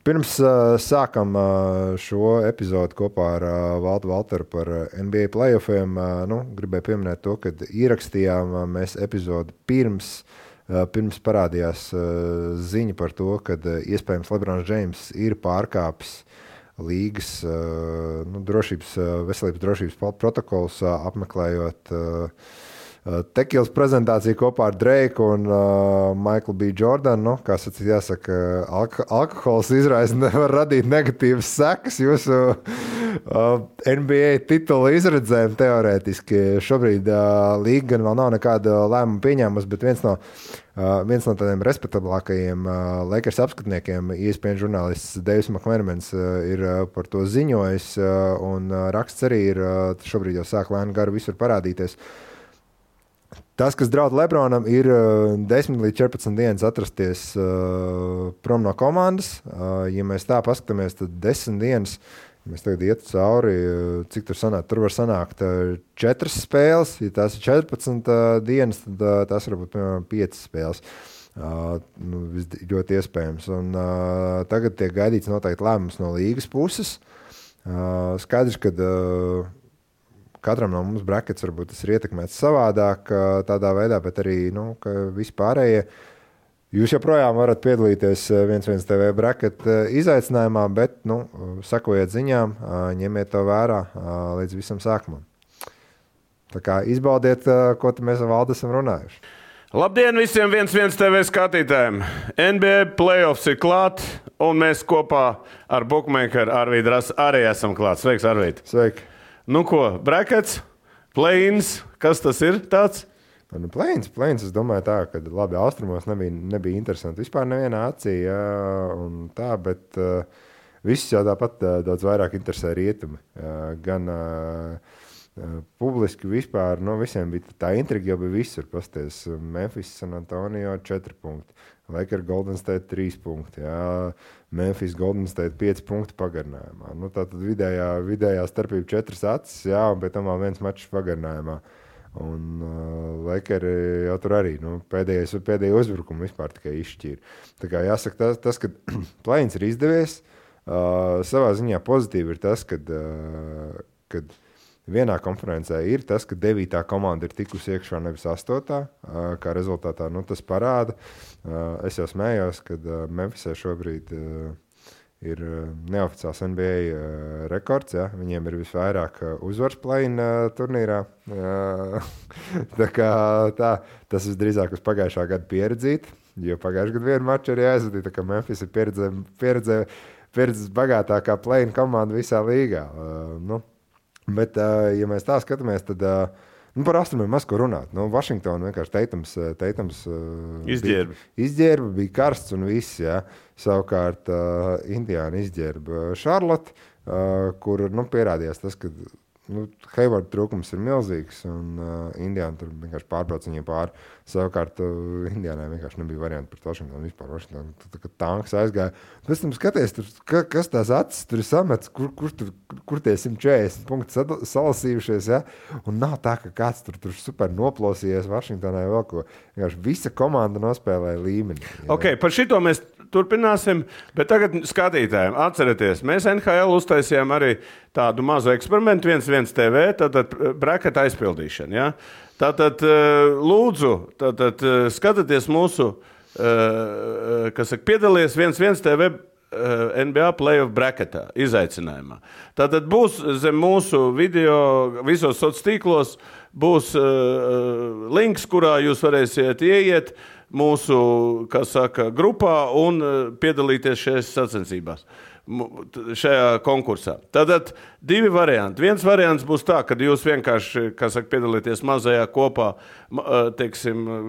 Pirms sākam šo epizodu kopā ar Valtu Valteru par NBA playoffiem, gribēju pieminēt to, ka ierakstījām mēs epizodu pirms parādījās ziņa par to, ka iespējams LeBrons James ir pārkāpis līgas veselības drošības protokols, apmeklējot Tekilas prezentāciju kopā ar Dreiku un Michael B. Jordanu. Kā sacīt, jāsaka, alkohols nevar radīt negatīvas sekas jūsu NBA titula izredzēm teorētiski. Šobrīd līga gan vēl nav nekāda lēmuma pieņēmusi, bet viens no tādiem respektablākajiem Lakers apskatniekiem, ESPN žurnālists Davis McMenemans, ir par to ziņojis, un raksts arī ir šobrīd jau sāk lēni garu visur parādīties. Tas, kas draud LeBronam, ir 10 līdz 14 dienas atrasties prom no komandas. Ja mēs tā paskatāmies, tad 10 dienas, mēs tagad iet cauri, cik tur sanāk. Tur var sanākt 4 spēles. Ja tās ir 14 dienas, tad tās var būt, piemēram, 5 spēles. Ļoti iespējams. Un tagad tiek gaidīts noteikti lēmums no līgas puses. Skaidrs, ka katram no mums brackets varbūt tas ir ietekmēts savādāk tādā veidā, bet arī, ka vispārējie. Jūs joprojām varat piedalīties 1-1 TV bracket izaicinājumā, bet, sekojiet ziņām, ņemiet to vērā līdz visam sākumam. Tā kā izbaudiet, ko mēs ar Valdu esam runājuši. Labdien visiem 1-1 TV skatītājiem! NBA playoffs ir klāt, un mēs kopā ar bookmakeru Arvīdu Rasu arī esam klāt. Sveiks, Arvīd! Sveiki! Nu ko, brackets, play-ins, kas tas ir tāds? Play-ins, es domāju tā, ka labi, austrumos nebija interesanti vispār nevienā acī, un tā, bet visus jau tāpat daudz vairāk interesē rietumi. Gan publiski vispār, visiem bija tā intriga jau bija visur, pasties, Memphis, San Antonio 4 punkti, Lakers Golden State 3 punkti, Memphis Golden State 5 punkti pagarinājumā. Tātad vidējā starpība 4 acis, un pēc tam vēl viens mačs pagarinājumā. Un Lakeri jau tur arī pēdējo uzbrukumu vispār tikai izšķīra. Tā kā jāsaka, tas ka play-ins ir izdevies, savā ziņā pozitīvi ir tas, kad vienā konferencē ir tas, ka 9. komanda ir tikusi iekšā, nevis 8. Kā rezultātā tas parāda. Es jau smējos, kad Memphisē šobrīd ir neoficiāls NBA rekords. Ja? Viņiem ir visvairāk uzvars play-in turnīrā. Tā kā tas visdrīzāk uz pagājušā gada pieredzīt, jo pagājušā gada vienu maču arī aizvadīja, tā kā Memphis ir pieredzes bagātākā play-in komanda visā līgā. Bet, ja mēs tā skatāmies, tad par austrumiem maz ko runāt. Vašingtona vienkārši Teitams izģērba, bija karsts un viss. Ja. Savukārt Indiāna izģērba Charlotte, kur pierādījās tas, ka Hayward trūkums ir milzīgs, un Indiāna tur vienkārši pārbrauc viņiem pāri. Savukārt Indiānai vienkārši nebija varianti pret Vašingtonu vispār. Tā kā tanks aizgāja. Pēc tam skaties, kas tās acis tur ir samets, kur tie 140 punkti salasījušies, ja? Un nav tā, ka kāds tur super noplosījies Vašingtonai vēl ko. Vienkārši visa komanda nospēlēja līmeni. Ja? Ok, par šito mēs turpināsim, bet tagad skatītājiem atcerieties, mēs NHL uztaisījām arī tādu mazu eksperimentu 1-1 TV, tātad bracket aizpildīšana, ja? Tātad lūdzu, skatieties mūsu, piedalies 1-1 TV NBA playoff bracketā, izaicinājumā. Tātad būs zem mūsu video, visos sociālos tīklos, būs links, kurā jūs varēsiet ieiet mūsu, grupā un piedalīties šajās sacensībās, šajā konkursā. Tātad 2 varianti. Viens variants būs tā, kad jūs vienkārši, piedalīties mazajā kopā,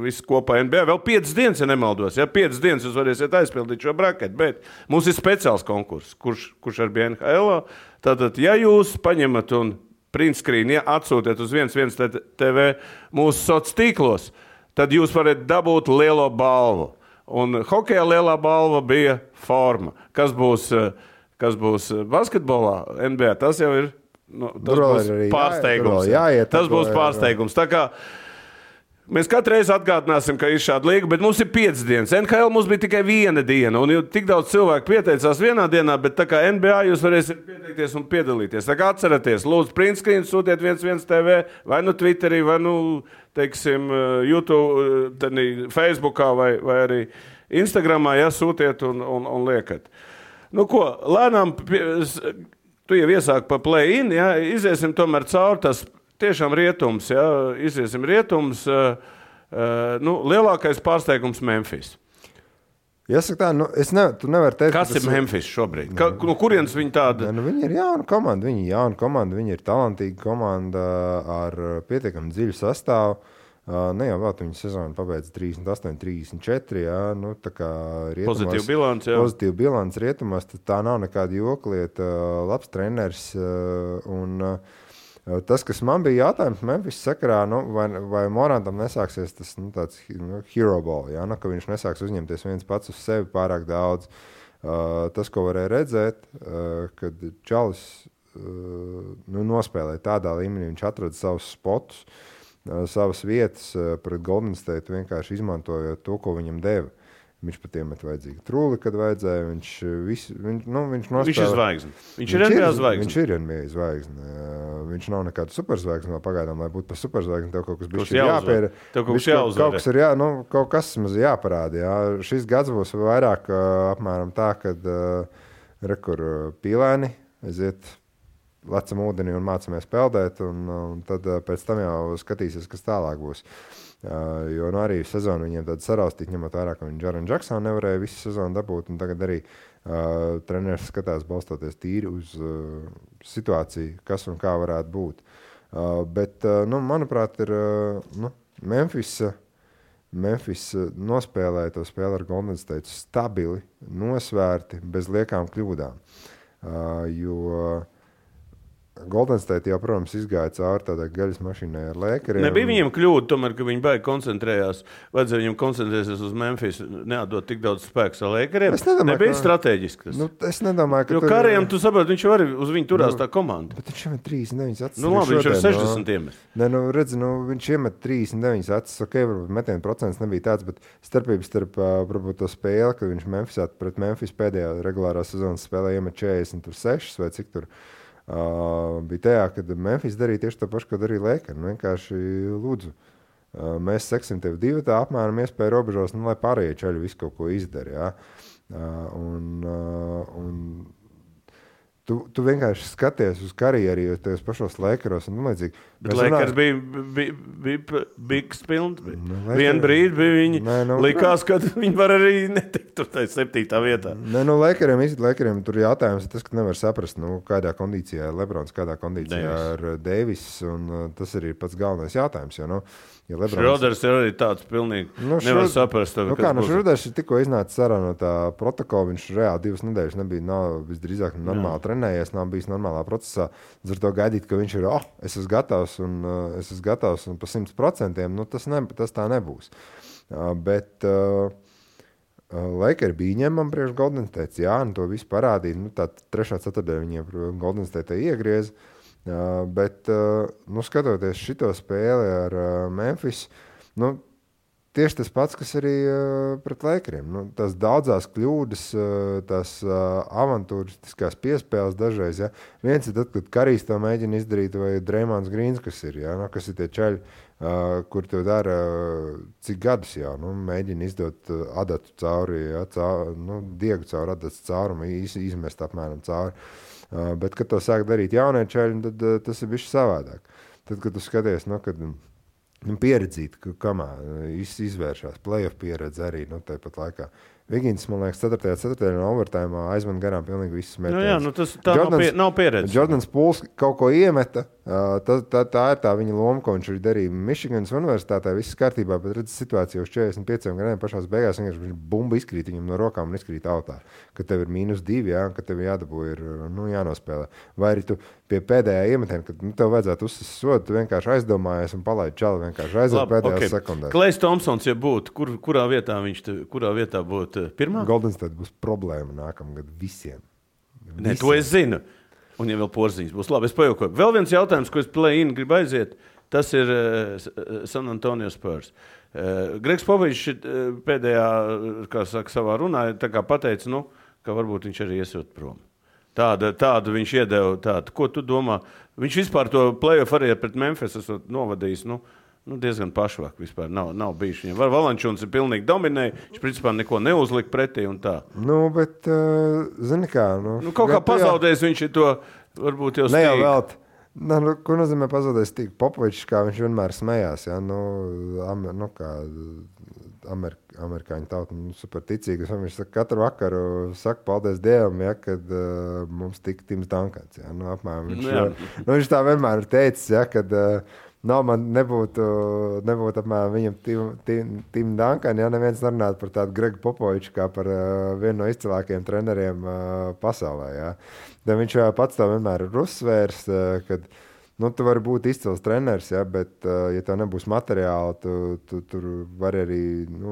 visi kopā NBA. Vēl 5 dienas, ja nemaldos. Ja 5 dienas jūs varēsiet aizpildīt šo braketu, bet mums ir speciāls konkurss, kurš ar bija NHL. Tātad, ja jūs paņemat un print screen, ja atsūtiet uz 1-1 TV mūsu sociālos tīklos, tad jūs varat dabūt lielo balvu. Un hokejā lielā balva bija forma. Kas būs basketbolā NBA, tas jau ir, tas būs pārsteigums. Tas būs pārsteigums. Tā kā Mēs katru reizi atgādināsim, ka ir šāda līga, bet mums ir 5 dienas. NHL mums bija tikai 1 diena, un tik daudz cilvēku pieteicās vienā dienā, bet tā kā NBA jūs varēsiet pieteikties un piedalīties. Tā kā atceraties, lūdzu, printscreen sūtiet 11 TV, vai nu Twitterī, vai nu, teiksim, YouTube, Facebookā, vai arī Instagramā, ja sūtiet un liekat. Nu ko, lēnām, tu jau iesāki pa play-in, ja, iziesim tomēr cauri tas tiešām rietums, ja, iziesim rietums, lielākais pārsteigums Memphis. Jāsaka tā, tu nevari teikt, kas ir Memphis šobrīd? No kurienes viņi tāda? Viņi ir jauna komanda, viņi ir talantīga komanda ar pietiekami dziļu sastāvu. Ne jau vēl viņi sezonu pabeidz 38, 34, jā, tā kā rietumos. Pozitīva bilants rietumos, tā nav nekāda joklieta, labs treneris un tas, kas man bija jautājums Memphis sakarā, vai Morantam nesāksies tas tāds hero ball, ja, ka viņš nesāks uzņemties viens pats uz sevi pārāk daudz. Tas, ko varēja redzēt, kad Čalis nospēlēja tādā līmenī, viņš atrada savus spotus, savas vietas pret Golden State, vienkārši izmantojot to, ko viņam deva. Viņš pat iemet vajadzīgu trūli, kad vajadzēja. Viņš nospēlē. Viņš ir zvaigzne. Viņš ir NBA zvaigzne. Viņš ir NBA zvaigzne. Viņš nav nekāda superzvaigzne vēl pagaidām, lai būtu par superzvaigzni. Tev kaut kas bišķi jāpēra. Kaut kas maz jāparāda. Jā. Šis gads būs vairāk apmēram tā, kad rekur pīlēni aiziet lecam ūdeni un mācamies peldēt, un tad pēc tam jau skatīsies, kas tālāk būs. Jo arī sezonu viņiem tāda saraustīt, ņemot vērā, ka viņi Jaren Jacksonu nevarēja visu sezonu dabūt, un tagad arī treneris skatās balstoties tīri uz situāciju, kas un kā varētu būt. Bet, manuprāt, ir Memphis nospēlēja to spēli ar Golden State stabili, nosvērti, bez liekām kļūdām. Jo Golden State jau, protams, izgāja cauri tādai gaļas mašīnai ar Lakeriem. Nebija viņiem kļūda, tomēr, ka viņi baigi koncentrējās. Vajadzēja viņiem koncentrēties uz Memphis, neatdot tik daudz spēks ar Lakeriem. Nebija strateģiski tas. Es nedomāju, ka... Jo Kariem, tu saproti, viņš jau arī uz viņu turās tā komanda. Bet viņš iemet 39 acis. Labi, viņš ir 60 iemet. Viņš iemet 39 acis. Ok, varbūt metienu procents nebija tāds, bet starpības starp, varbūt to spēli, kad viņš pret Memphis pēdējā regulārā sezonas spēlē iemet 46 vai cik tur. Bija tajā, kad Memphis darīja tieši to pašu, ko darīja Lakers. Vienkārši lūdzu, mēs seksim tev divi tā apmēram iespēju robežos, lai pārējie čaļi visu kaut ko izdara. Ja? Tu vienkārši skaties uz karjeru, jo tajos pašos Lakeros un līdzīgi. Bet Lakers bija bigs pilns. Vienu brīdi bija viņi likās, ka viņi var arī netikt tur tai 7. vietā. Lakeriem tur jautājums ir tas, ka nevar saprast, kādā kondīcijā ir Lebrons, kādā kondīcijā ir Davis, un tas arī ir pats galvenais jautājums, jo, ja Šroders ir arī tāds pilnīgi nevar saprast. Šroders ir tikko iznācis ārā no tā protokola, viņš reāli 2 nedēļas nav visdrīzāk normāli trenējies, nav bijis normālā procesā. Ar to gaidīt, ka viņš ir, es esmu gatavs un pa 100%, tas tā nebūs. Bet Lakers bija ņemam priekš Golden State, un to visu parādīja. Tā 3. ceturtdienā viņiem Golden State iegriez. Bet, skatoties šito spēli ar Memphis, tieši tas pats, kas arī pret Lakeriem. Tās daudzās kļūdas, tās avantūristiskās piespēles dažreiz. Ja? Viens ir tad, kad Karijs to mēģina izdarīt, vai Dreymonds Greens, kas ir, ja? Kas ir tie čaļi, kur to dara cik gadus jau. Mēģina izdot adatu cauri, ja? Diegu cauri adatas caurumu, izmest apmēram cauri. Bet, kad to sāk darīt jaunie čaļi, tad tas ir bišķi savādāk. Tad, kad tu skaties, kad pieredzīt, kamā izvēršās playoff pieredze arī, tāpat laikā. Vigins, man liekas, 4. ceturtdienā overtājumā aizman garām pilnīgi visus metienus. Tā nav pieredze. Jordans Pools kaut ko iemeta, tā ir tā viņa loma, ko viņš arī darīja Michiganas universitātē, viss kārtībā, bet redz situāciju uz 45 gadiem pašās beigās, viņš bumba izkrīt viņam no rokām un izkrīt autā, ka tev ir -2, jā, ka tev jādabū ir jānospēlē. Vai arī tu pie pēdējā iemetiena, kad tev vajadzētu uzsist sodu, tu vienkārši aizdomājies un palaid čali, vienkārši aiziet pēdējās sekundēs. Klejs Thompsons, ja būtu, kurā vietā būtu pirmā? Golden State būs problēma nākamgad visiem. To es zinu. Un ja vēl Porziņš būs labi, es pajokoju. Vēl viens jautājums, ko es play-in gribu aiziet. tas ir San Antonio Spurs. Gregs Popovičs pēdējā, kā saka, savā runā, tā kā pateica, ka varbūt viņš arī iesūt prom. Tādu viņš iedeva tādu. Ko tu domā? Viņš vispār to play-off arī pret Memphis esot novadījis, diezgan pašvāk vispār nav bijis viņam. Valančuns ir pilnīgi dominēja, viņš principā neko neuzlika pretī un tā. Bet, zini kā... kaut kā pazaudējis viņš ir to, varbūt jau stīk. Ne jau velt. Ko nozīmē pazaudējis stīk? Popovičs, kā viņš vienmēr smējās, ja? Kā amerikāņu tauta, super ticīgas. Viņš katru vakaru saka paldies Dievam, ja, kad mums tika Tims Dankans. Ja? Apmēram, viņš tā vienmēr ir teicis, ja, kad... man nebūtu apmēram viņam Tim Duncan, ja neviens nerunātu par tādu Gregu Popoviču kā par vienu no izcilākajiem treneriem pasaulē. Ja. Tad viņš pats tā vienmēr ir uzsvērs, kad tu vari būt izcils treneris, ja, bet ja tev nebūs materiāli, tu tur vari arī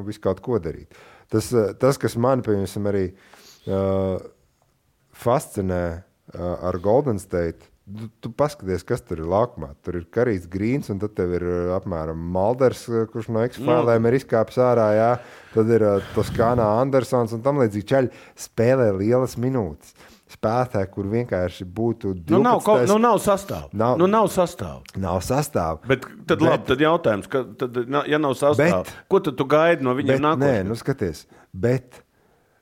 visu kaut ko darīt. Tas kas man, piemēram, arī fascinē ar Golden State, tu paskaties, kas tur ir laukumā. Tur ir Karijs Grīns, un tad tev ir apmēram Malders, kurš no X-Filēm ir izkāpis ārā, jā. Tad ir Toskānā Andersons, un tam līdzīgi čaļi spēlē lielas minūtes. Spēlētāji, kur vienkārši būtu 12. Nav sastāvu. Nav sastāvu. Bet tad labi, tad jautājums, ja nav sastāvu, ko tad tu gaidi no viņiem nākotnē? Skaties, bet...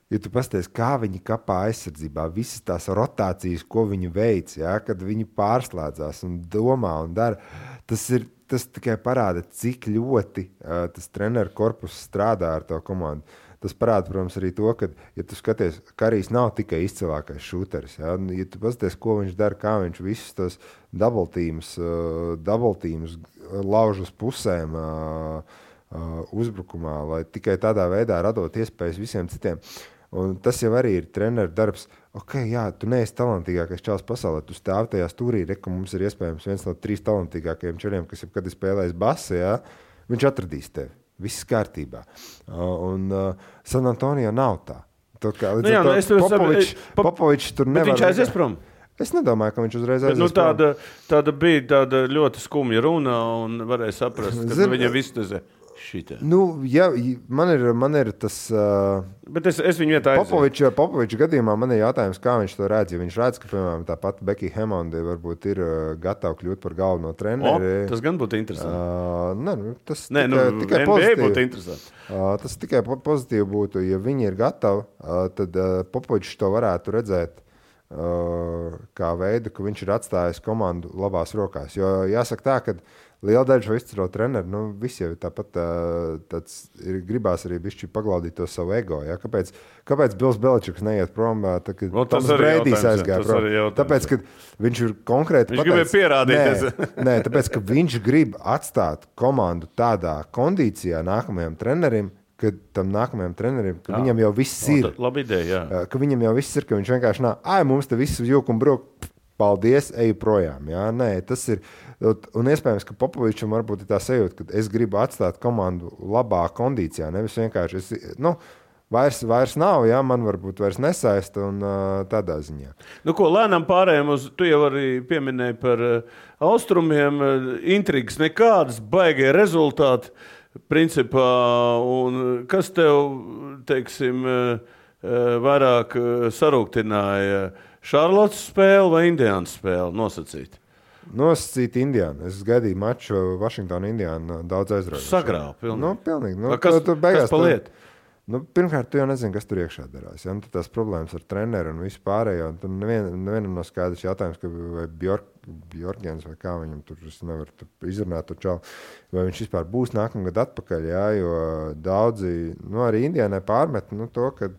Ja tu pasties, kā viņi kapā aizsardzībā, visas tās rotācijas, ko viņi veic, ja, kad viņi pārslēdzās un domā un dara, tas tikai parāda, cik ļoti tas treneru korpus strādā ar to komandu. Tas parāda, protams, arī to, ka, ja tu skaties, Karijs nav tikai izcilākais šūteris. Ja, ja tu pasties, ko viņš dara, kā viņš visus tos double teams lauž uz pusēm uzbrukumā, lai tikai tādā veidā radot iespējas visiem citiem. Un tas jau arī ir treneru darbs. Tu neesi talantīgākais čalis pasaulē, tu stāv tajā stūrī, ka mums ir iespējams viens no 3 talantīgākajiem čaliem, kas jebkad ir spēlējis basi, ja? Viņš atradīs tevi. Viss kārtībā. San Antonio nav tā. Popovičs tur nevar... Bet viņš aizies prom? Es nedomāju, ka viņš uzreiz aizies prom. Tāda bija tāda ļoti skumja runa un varēja saprast, ka viņam viss tezē. Man ir tas... Bet es viņu vietā aizies. Popoviča gadījumā man ir jautājums, kā viņš to redz. Ja viņš redz, ka, piemēram, tāpat Becky Hammondi varbūt ir gatava kļūt par galveno treneri. Tas gan būtu interesanti. Tas tikai NBA būtu interesanti. Tas tikai pozitīvi būtu. Ja viņi ir gatavi, tad Popovičs to varētu redzēt kā veidu, ka viņš ir atstājis komandu labās rokās. Jo jāsaka tā, ka liela daļa šo izcilo treneru, visi jau tāpat gribās arī bišķi paglaudīt to savu ego. Ja? Kāpēc Bills Beličiks neiet prom, kad Toms Breidijs aizgāja prom? Tāpēc, ka viņš ir konkrēti viņš gribēja pierādīties. Nē, tāpēc, ka viņš grib atstāt komandu tādā kondīcijā nākamajam trenerim, ka tam nākamajam trenerim, ka viņam jau viss ir. Labi ideja, jā. Ka viņam jau viss ir, ka viņš vienkārši mums te visu jūk un bruk, paldies, eju projām. Jā? Nē, tas ir... Un iespējams, ka Popovičam varbūt ir tā sajūta, ka es gribu atstāt komandu labā kondīcijā, nevis vienkārši vairs nav, jā, man varbūt vairs nesaista un tādā ziņā. Lēnām pārējām uz, tu jau arī pieminēji par austrumiem, intrigas nekādas, baigie rezultāti, principā, un kas tev, teiksim, vairāk sarūktināja, Šarlotas spēle vai Indiānas spēle nosacīt? Nosacīt Indiānu. Es gaidīju maču Vašingtonu Indiānu daudz aizraujoši. Sagrāv, pilnīgi. Pilnīgi. Kas paliet? Pirmkārt, tu jau nezini, kas tur iekšā darās. Ja? Tu tās problēmas ar treneru un visu pārējo. Tur nevienam nav skaidrs jautājums, ka vai Bjorkjens vai kā viņam tur, es nevaru izrunāt to čalu, vai viņš vispār būs nākamgad atpakaļ, ja? Jo daudzi, arī Indiānai pārmet to, ka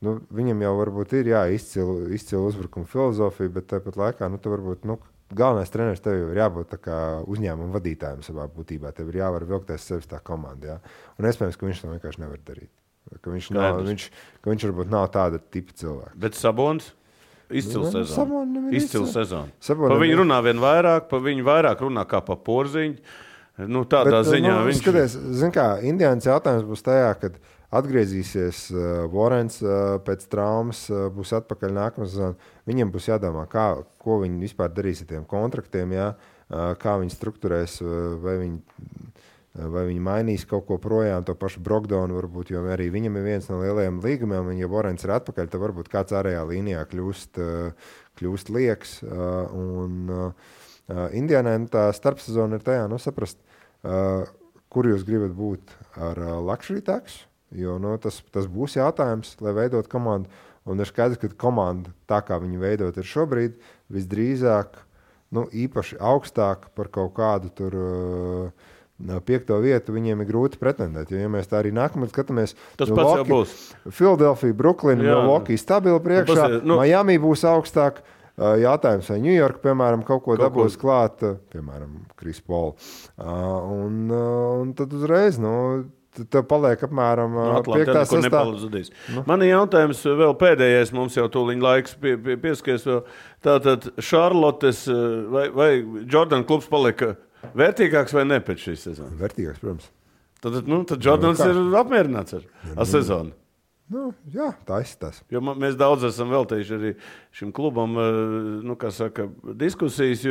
viņam jau varbūt ir izcila uzbrukuma filozofija, bet tāpat laikā tu varbūt, galvenais treneris tev ir jābūt tā kā uzņēmuma vadītājiem savā būtībā. Tev ir jāvar vilkties sevis tā komanda. Jā. Un iespējams, ka viņš to vienkārši nevar darīt. Ka viņš varbūt nav tāda tipa cilvēka. Bet Sabons? Izcils sezonu. Izcils sezonu. Pa viņu runā vien vairāk, pa viņu vairāk runā kā pa porziņu. Tādā ziņā viņš... Skaties, zin kā, Indiānas jautājums būs tajā, kad atgriezīsies Vorens pēc traumas, būs atpakaļ nākamā sezona. Viņiem būs jādomā, ko viņi vispār darīs ar tiem kontraktiem. Jā. kā viņi strukturēs, vai viņi mainīs kaut ko projām, to pašu Brogdonu varbūt, jo arī viņam ir viens no lielajiem līgumiem, un ja Vorens ir atpakaļ, tad varbūt kāds ārējā līnijā kļūst lieks. Indiānai tā starpsezona ir tajā, saprast, kur jūs gribat būt ar luxury tax, jo tas būs jautājums, lai veidot komandu, un ir skaidrs, ka komanda, tā kā viņi veidot ir šobrīd, visdrīzāk, īpaši augstāk par kaut kādu tur 5. vietu viņiem ir grūti pretendēt. Jo, ja mēs tā arī nākamais skatāmies, tas pats jau būs. Philadelphia, Brooklyn, Milwaukee stabili priekšā, Miami būs augstāk. Jautājums, vai New York, piemēram, kaut ko dabūs klāt, piemēram, Chris Paul. Un tad uzreiz, tev paliek apmēram 5. 6. Man ir jautājums vēl pēdējais, mums jau tūliņ laiks pieskaries vēl. Tātad Šarlotes vai Jordan klubs palika vērtīgāks vai ne pēc šīs sezonas? Vērtīgāks, protams. Tad Jordans ir apmierināts ar sezonu. Jā, tā izskatās. Jo mēs daudz esam veltījuši arī šim klubam, diskusijas,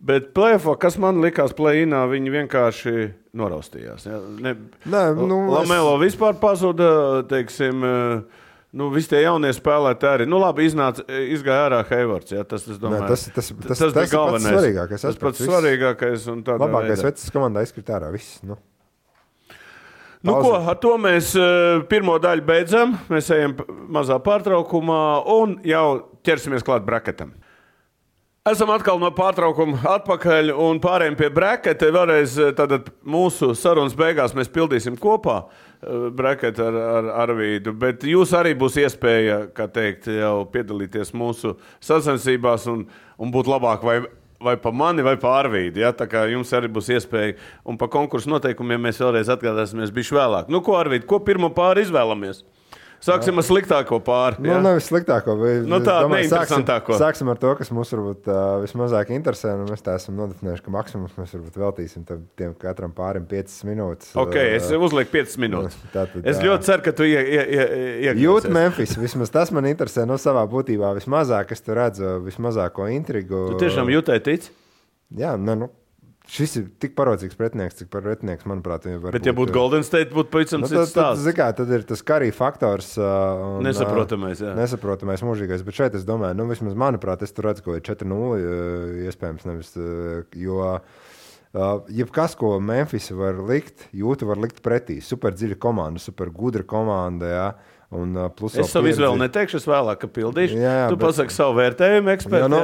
bet play-offā, kas man likās play-inā, viņi vienkārši noraustījās. Ja? Lamelo vispār pazuda, teiksim, visi tie jaunie spēlētāji arī. Labi, izgāja ārā Haywards, ja? Tas bija galvenais. Tas pats svarīgākais. Labākais vecs komandā izkrīt ārā, viss. Ar to mēs pirmo daļu beidzam. Mēs ejam mazā pārtraukumā un jau ķersimies klāt braketam. Esam atkal no pārtraukuma atpakaļ un pārējiem pie braketa. Vēlreiz tātad mūsu sarunas beigās mēs pildīsim kopā braketu ar Arvīdu, bet jūs arī būs iespēja, kā teikt, jau piedalīties mūsu sacensībās un būt labāk vai pa mani, vai pa Arvīdu. Ja? Tā kā jums arī būs iespēja. Un pa konkursu noteikumiem mēs vēlreiz atgādāsimies bišķi vēlāk. Ko, Arvīd, ko pirmo pāri izvēlamies? Sāksim ar sliktāko pāri. Ja? Nevis sliktāko, bet neinteresantāko. Sāksim ar to, kas mums varbūt vismazāk interesē. Mēs tā esam nodefinējuši, ka maksimums mēs varbūt veltīsim tiem katram pārim 5 minūtes. Ok, es uzlieku 5 minūtes. Es ļoti ceru, ka tu iekļūsies. Jūt Memphis, vismaz tas man interesē savā būtībā vismazāk, es tu redzu vismazāko intrigu. Tu tiešām jūtai tic? Jā, šis ir tik parodzīgs pretinieks, cik pretinieks, manuprāt, var bet, ja būtu Golden State, būtu pavisam cits stāsts. Tad ir tas Curry faktors. Nesaprotamais. Mūžīgais. Bet šeit es domāju, vismaz manuprāt, es tur redzu, ko ir 4-0 iespējams nevis, jo jebkas, ko Memphis var likt, Jūta var likt pretī. Super dziļa komanda, super gudra komanda, jā. Es savu izvēli neteikšu, es vēlāk pildīšu. Tu pasaki savu vērtējumu ekspertu.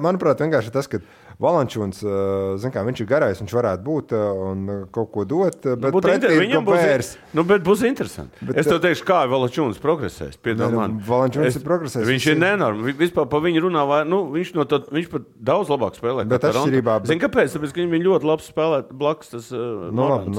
Manuprāt, vienkārši tas, ka Valančūns, viņš ir garais, viņš varētu būt un kaut ko dot, bet pretī ir Gobērs. Bet būs interesanti. Es tev teikšu, kā Valančūns progresēs. Valančūns ir progresējis. Viņš ir nenormāli. Vispār pa viņu runā, viņš pat daudz labāk spēlē. Bet atšķirībā. Zini, kāpēc? Tāpēc, ka viņi ļoti labi spēlē blakus tas Morants.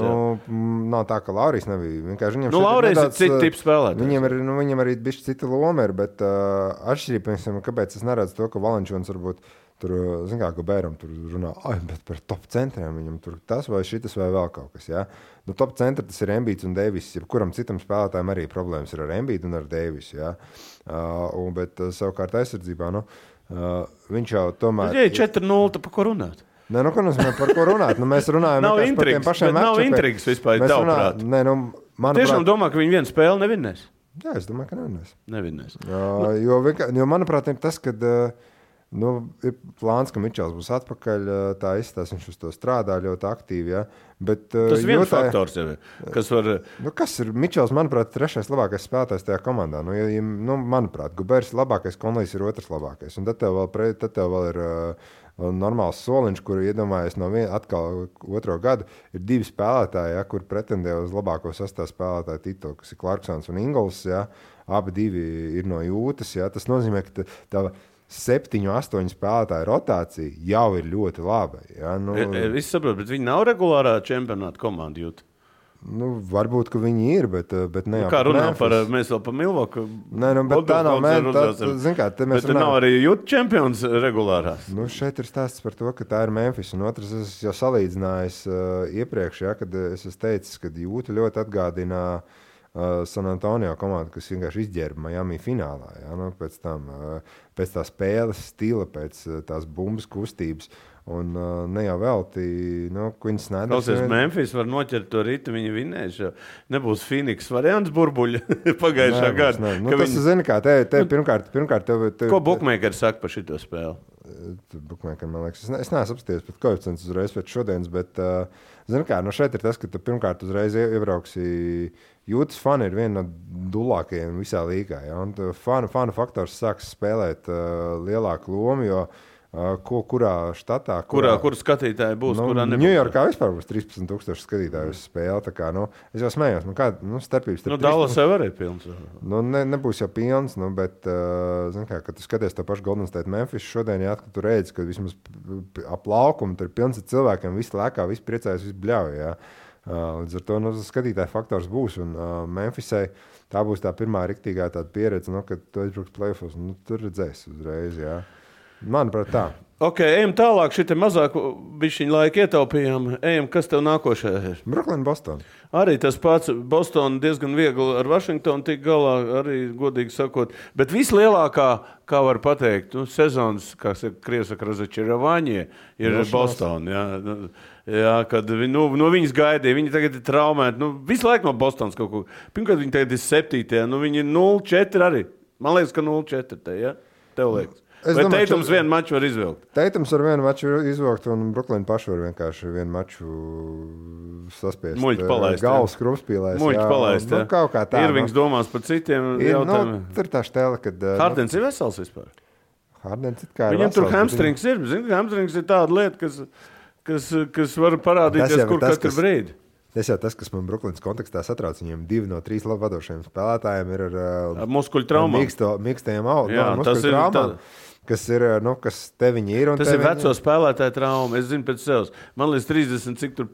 Nav tā, ka Laurijs nebija. Laurijs ir cita tipa spēlētājs. Viņam arī bišķi cita loma ir, bet atšķirība, kāpēc es neredzu to, ka Valančūns varbūt tur, kā Gobēram tur runā, bet par top centriem viņam tur tas vai šitas vai vēl kaut kas, jā. Top centri tas ir Embiids un Deivis, kuram citam spēlētājiem arī problēmas ir ar Embiidu un ar Deivisu, jā. Bet savukārt aizsardzībā, viņš jau tomēr... Ja 4-0, tad pa ko runāt? Ko nozīmē par ko runāt? Mēs runājam par tiem pašiem matčiem. Nav intrigas vispār, tavuprāt. Tiešām domā, ka viņi vienu spēli nevinnēs? Jā, es domāju, ka nevinnēs. Jo manuprāt, ir tas, kad... ir plāns, ka Mičels būs atpakaļ, tā izstās, viņš uz to strādā ļoti aktīvi, ja? Bet, tas viens faktors jau ir, kas var... kas ir Mičels, manuprāt, trešais labākais spēlētājs tajā komandā? Manuprāt, Gobērs ir labākais, Konlijs ir otrs labākais. Un tad tev vēl ir normāls soliņš, kur iedomājies atkal otro gadu, ir 2 spēlētāji, ja, kur pretendē uz labāko sastāvu spēlētāju titulu, kas ir Clarksons un Ingols, ja? Abi 2 ir no Jūtas, ja? Tas nozīmē, ka tā 7-8 spēlētāju rotācija jau ir ļoti laba. Ja? Es saprotu, bet viņi nav regulārā čempionāta komanda Jūta. Varbūt, ka viņi ir, bet ne jau kā runā par, mēs vēl par Milwaukee. Bet tā nav, bet nav arī Jūta čempions regulārās. Šeit ir stāsts par to, ka tā ir Memphis. Un otrs, es jau salīdzinājis iepriekš, ja, kad es teicu, ka Jūta ļoti atgādina San Antonio komanda, kas vienkārši izģērba Miami finālā. Ja? Nu, pēc tā spēles stila, pēc tās bumbas kustības. Un ne jau velti, Quins Snyder. Klausies, Memphis var noķert to ritu, viņi vinēs. Nebūs Phoenix variants burbuļa pagājušā gada. Tas zini kā, te pirmkārt tev... Ko bookmakeri saka par šito spēli? Bookmakeri, man liekas, es neesmu apsties pēc koeficients uzreiz pēc šodienas, bet zini kā, šeit ir tas, ka tu pirmkārt uzreiz iebrauksi. Jūtas fani ir viena no dulākajiem visā līgā. Ja? Un fanu faktors sāks spēlēt lielāku lomu, jo kurā štatā... Kur skatītāji būs, kurā nebūs? Ņujorkā vispār būs 13,000 skatītāju uz spēli. Tā kā, es jau smējos, starpības... Dallas jau arī pilns. Nebūs jau pilns, bet, zin kā, kad tu skaties to pašu Golden State Memphis šodien, jā, kad tu redzi, ka vismaz ap laukumu tur ir pilns ar cilvēkiem, visi lēkā, visi priecājas, visi bļauj, jā. Līdz ar to skatītāju faktors būs, un Memphisai tā būs tā pirmā riktīgā tāda pieredze, kad tu aizbruks playoffs, tur redzēs uzreiz, jā. Manuprāt, tā. Ok, ejam tālāk, šitie mazāk bišķiņu laiku ietaupījām. Ejam, kas tev nākošajā ir? Brooklyn, Boston. Arī tas pats Boston diezgan viegli ar Washingtonu tik galā, arī godīgi sakot. Bet vislielākā, kā var pateikt, sezonas, kā Krievs saka, Razačeravāņie, ir Boston. Jā, kad no viņas gaidīja, viņi tagad ir traumēti. Visu laiku no Bostonas kaut ko. Pirmkārt, viņi tagad ir 7. Viņi ir 0-4 arī. Man liekas, ka 0-4 te, ja? Tev liekas. Vai Teitums vienu maču var izvilkt? Teitums var vienu maču izvilkt, un Brooklyn paši var vienkārši vienu maču saspiest. Muļķi palaist. Galvas krupspīlēs. Muļķi palaist, jā. Kaut kā tā. Irvings domās par citiem jautājumiem. Tur tā štēle, kad... Hardens ir vesels vispār. Hardens it kā ir Viņam tur hamstrings ir. Zini, hamstrings ir tāda lieta, kas var parādīties kur katru brīdi. Tas jau tas, kas man Brooklynas kontekstā satrauc, viņiem 2 no 3 vadošajiem spēlētājiem ir ar muskuļu traumām. Mīkstajiem muskuļu traumām, kas ir, kas te viņi ir. Tas ir veco spēlētāju trauma. Es zinu pēc sevis. Man līdz